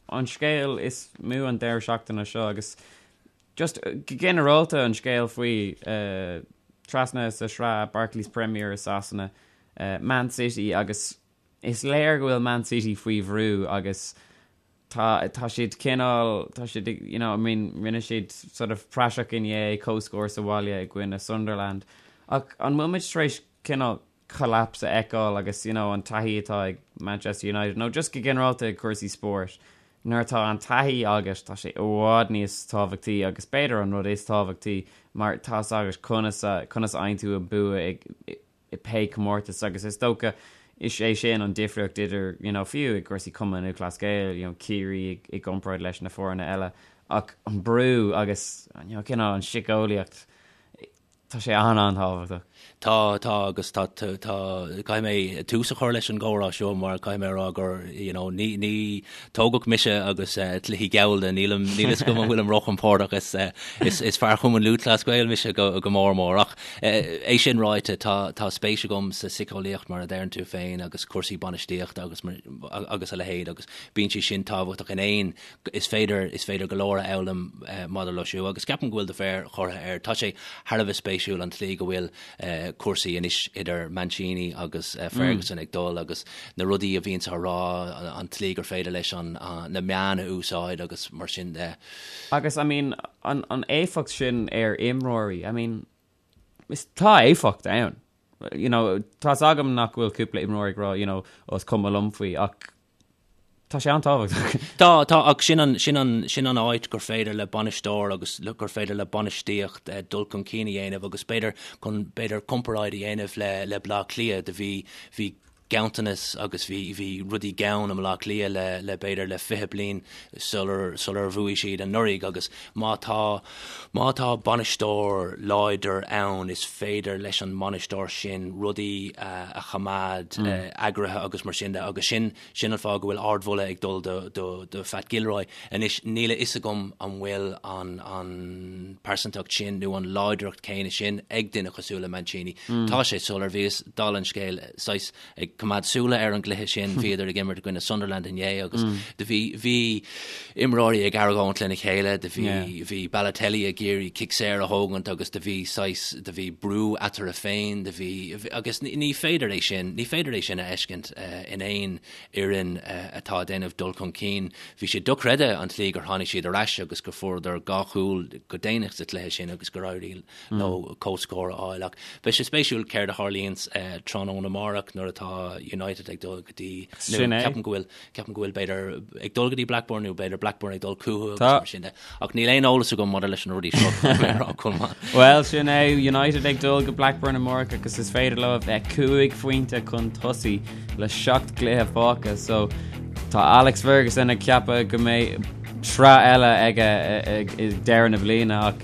an scéal is mó an deireadh seachtaine seo agus just go ginearálta an scéal faoi trasna sa sraith Barclays Premier i Sasana, Man City agus is léir go bhfuil Man City faoi bhrú agus tá tá siad cineál tá siad you know I mean rinne siad sort of praiseach inné comhscór sa bhaile i gcoinne Sunderland ach an bhfuil muid tar éis cineál collapse a fheiceáil agus you know an taithí atá ag Manchester United nó just go ginearálta ag cúrsaí spóirt nuair atá an taithí agat tá sé i bhfad níos tábhachtaí agus b'fhéidir an rud is tábhachtaí mar tá 's agat conas a conas a fhaigheann tú an bua ag i pé comórtas agus is dócha is é sin an difríocht idir you know fiú i gcúrsaí Cumann Lúthchleas Gael you know Ciarraí i gcomparáid leis na foirne eile ach an brú agus you know cineál an síceolaíocht tá sé an-an-tábhachtach. Tá, tá agus tá, tá, caithfidh mé tús a chur leis an gcomhrá seo mar caithfidh mé a rá gur you know ní, ní tógadh mise agus cluichí gallda nílim, níl fhios agam an bhfuilim róchompordach is, is, is fear Chumann Lúthchleas Gael mise go, go mór mór ach É sin ráite, tá tá spéis agam sa síceolaíocht mar a deireann tú féin agus cúrsaí bainistíochta agus agus a leithéid agus bíonn sé sin tábhachtach in aon is féidir is féidir go leor a fhoghlaim maidir leo siúd agus ceapaim go bhfuil do mhéar curtha air. Tá sé thar a bheith spéisiúil an tslí go bhfuil cúrsaí anois idir Mancini agus Ferguson ag dul agus na rudaí a bhíonns á rá, an tslí gur féidir leis an na meáin a úsáid agus mar sin de. Agus I mean an an éifeacht sin ar imreoirí, I mean is tá éifeacht ann. You know, tá's agam nach bhfuil cúpla imreoir ag rá, you know, oh is cuma liom faoi ach tá sé an-tábhachtach. Tá, tá, ach sin an, sin an, sin an áit gur féidir le bainisteoir agus gur féidir le bainistíocht dul chun cinn a dhéanamh agus b'fhéidir chun, b'fhéidir comparáid a dhéanamh le, le Bleá Cliath do bhí, bhí ganntanas agus bhí bhí rudaí gann i mBleá Cliath le le b'fhéidir le 20 bliain sular sular bhuaigh siad anuraidh agus má tá má tá bainisteoir láidir ann is féidir leis an mbainisteoir sin rudaí a a choimeád eagraithe agus mar sin de agus sin sin an fáth go bhfuil ardmholadh ag dul do do do Phat Gilroy. Anois níl a fhios agam an bhfuil an an pearsantacht sin nó an láidreacht céanna sin ag duine cosúil le Mancini. Tá sé soiléir bhíos dála an scéil saghas ag coimeád súile ar an gcluiche sin, bhíodar ag imirt i gcoinne Sunderland inné agus do bhí bhí imreoirí ag argóint lena chéile, do bhí bhí Balotelli ag iarraidh cic saor a thógaint agus do bhí saghas do bhí brú eatarthu féin, do bhí agus ní féidir é sin ní féidir é sin a fheiscint in aon fhoireann atá ag déanamh dul chun cinn. Bhí sé dochreidte an tslí gur tháinig siad ar ais agus go fuaireadar dhá chúl go déanach sa chluiche sin agus gur éirigh leo comhscór a fháil. Ach beidh sé spéisiúil céard a tharlaíonns tráthnóna amárach nuair atá United ag dul go dtí, nó ceapaim go bhfuil, ceapaim go bhfuil b'fhéidir ag dul go dtí Blackburn nó b'fhéidir Blackburn ag dul chucu agus mar sin de. Ach níl aon eolas agam maidir leis na rudaí seo, caithfidh mé a rá, Colmán. Bhuel, sin é, United ag dul go Blackburn amárach agus is féidir leo a bheith 5 phointe chun tosaigh le 7 gcluiche fágtha. So tá Alex Ferguson ag ceapadh go mbeidh. sraith eile aige ag deireadh na bliana ach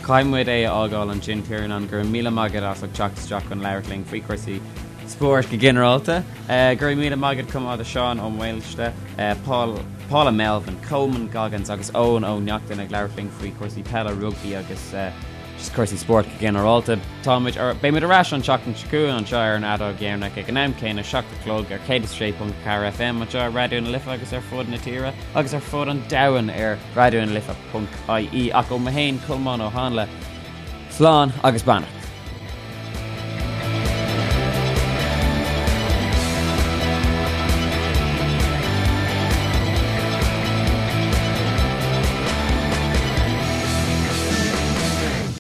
caithfidh muid é a fhágáil ansin Tiarnán, go raibh míle maith agat as ucht teacht isteach chun labhairt linn faoi chúrsaí spóirt go ginearálta. Go raibh míle maith agat chomh maith do Seán Ó Maoilste, Paul, Paula Melvin, Colman Goggins agus Eoin Ó Neachtain ag labhairt linn faoi chúrsaí peile, rugbaí agus just cúrsaí spóirt go ginearálta. Táimid ar, beimid ar ais an tseachtain seo chugainn anseo ar an Fheadóg Dheireanach ag an am céanna, 7 a chlog ar 106.4 FM anseo ar Raidió na Life agus ar fud na tíre agus ar fud an domhain ar raidionalife.ie. Ach ó mé féin, Colmán Ó Háinle, slán agus beannacht.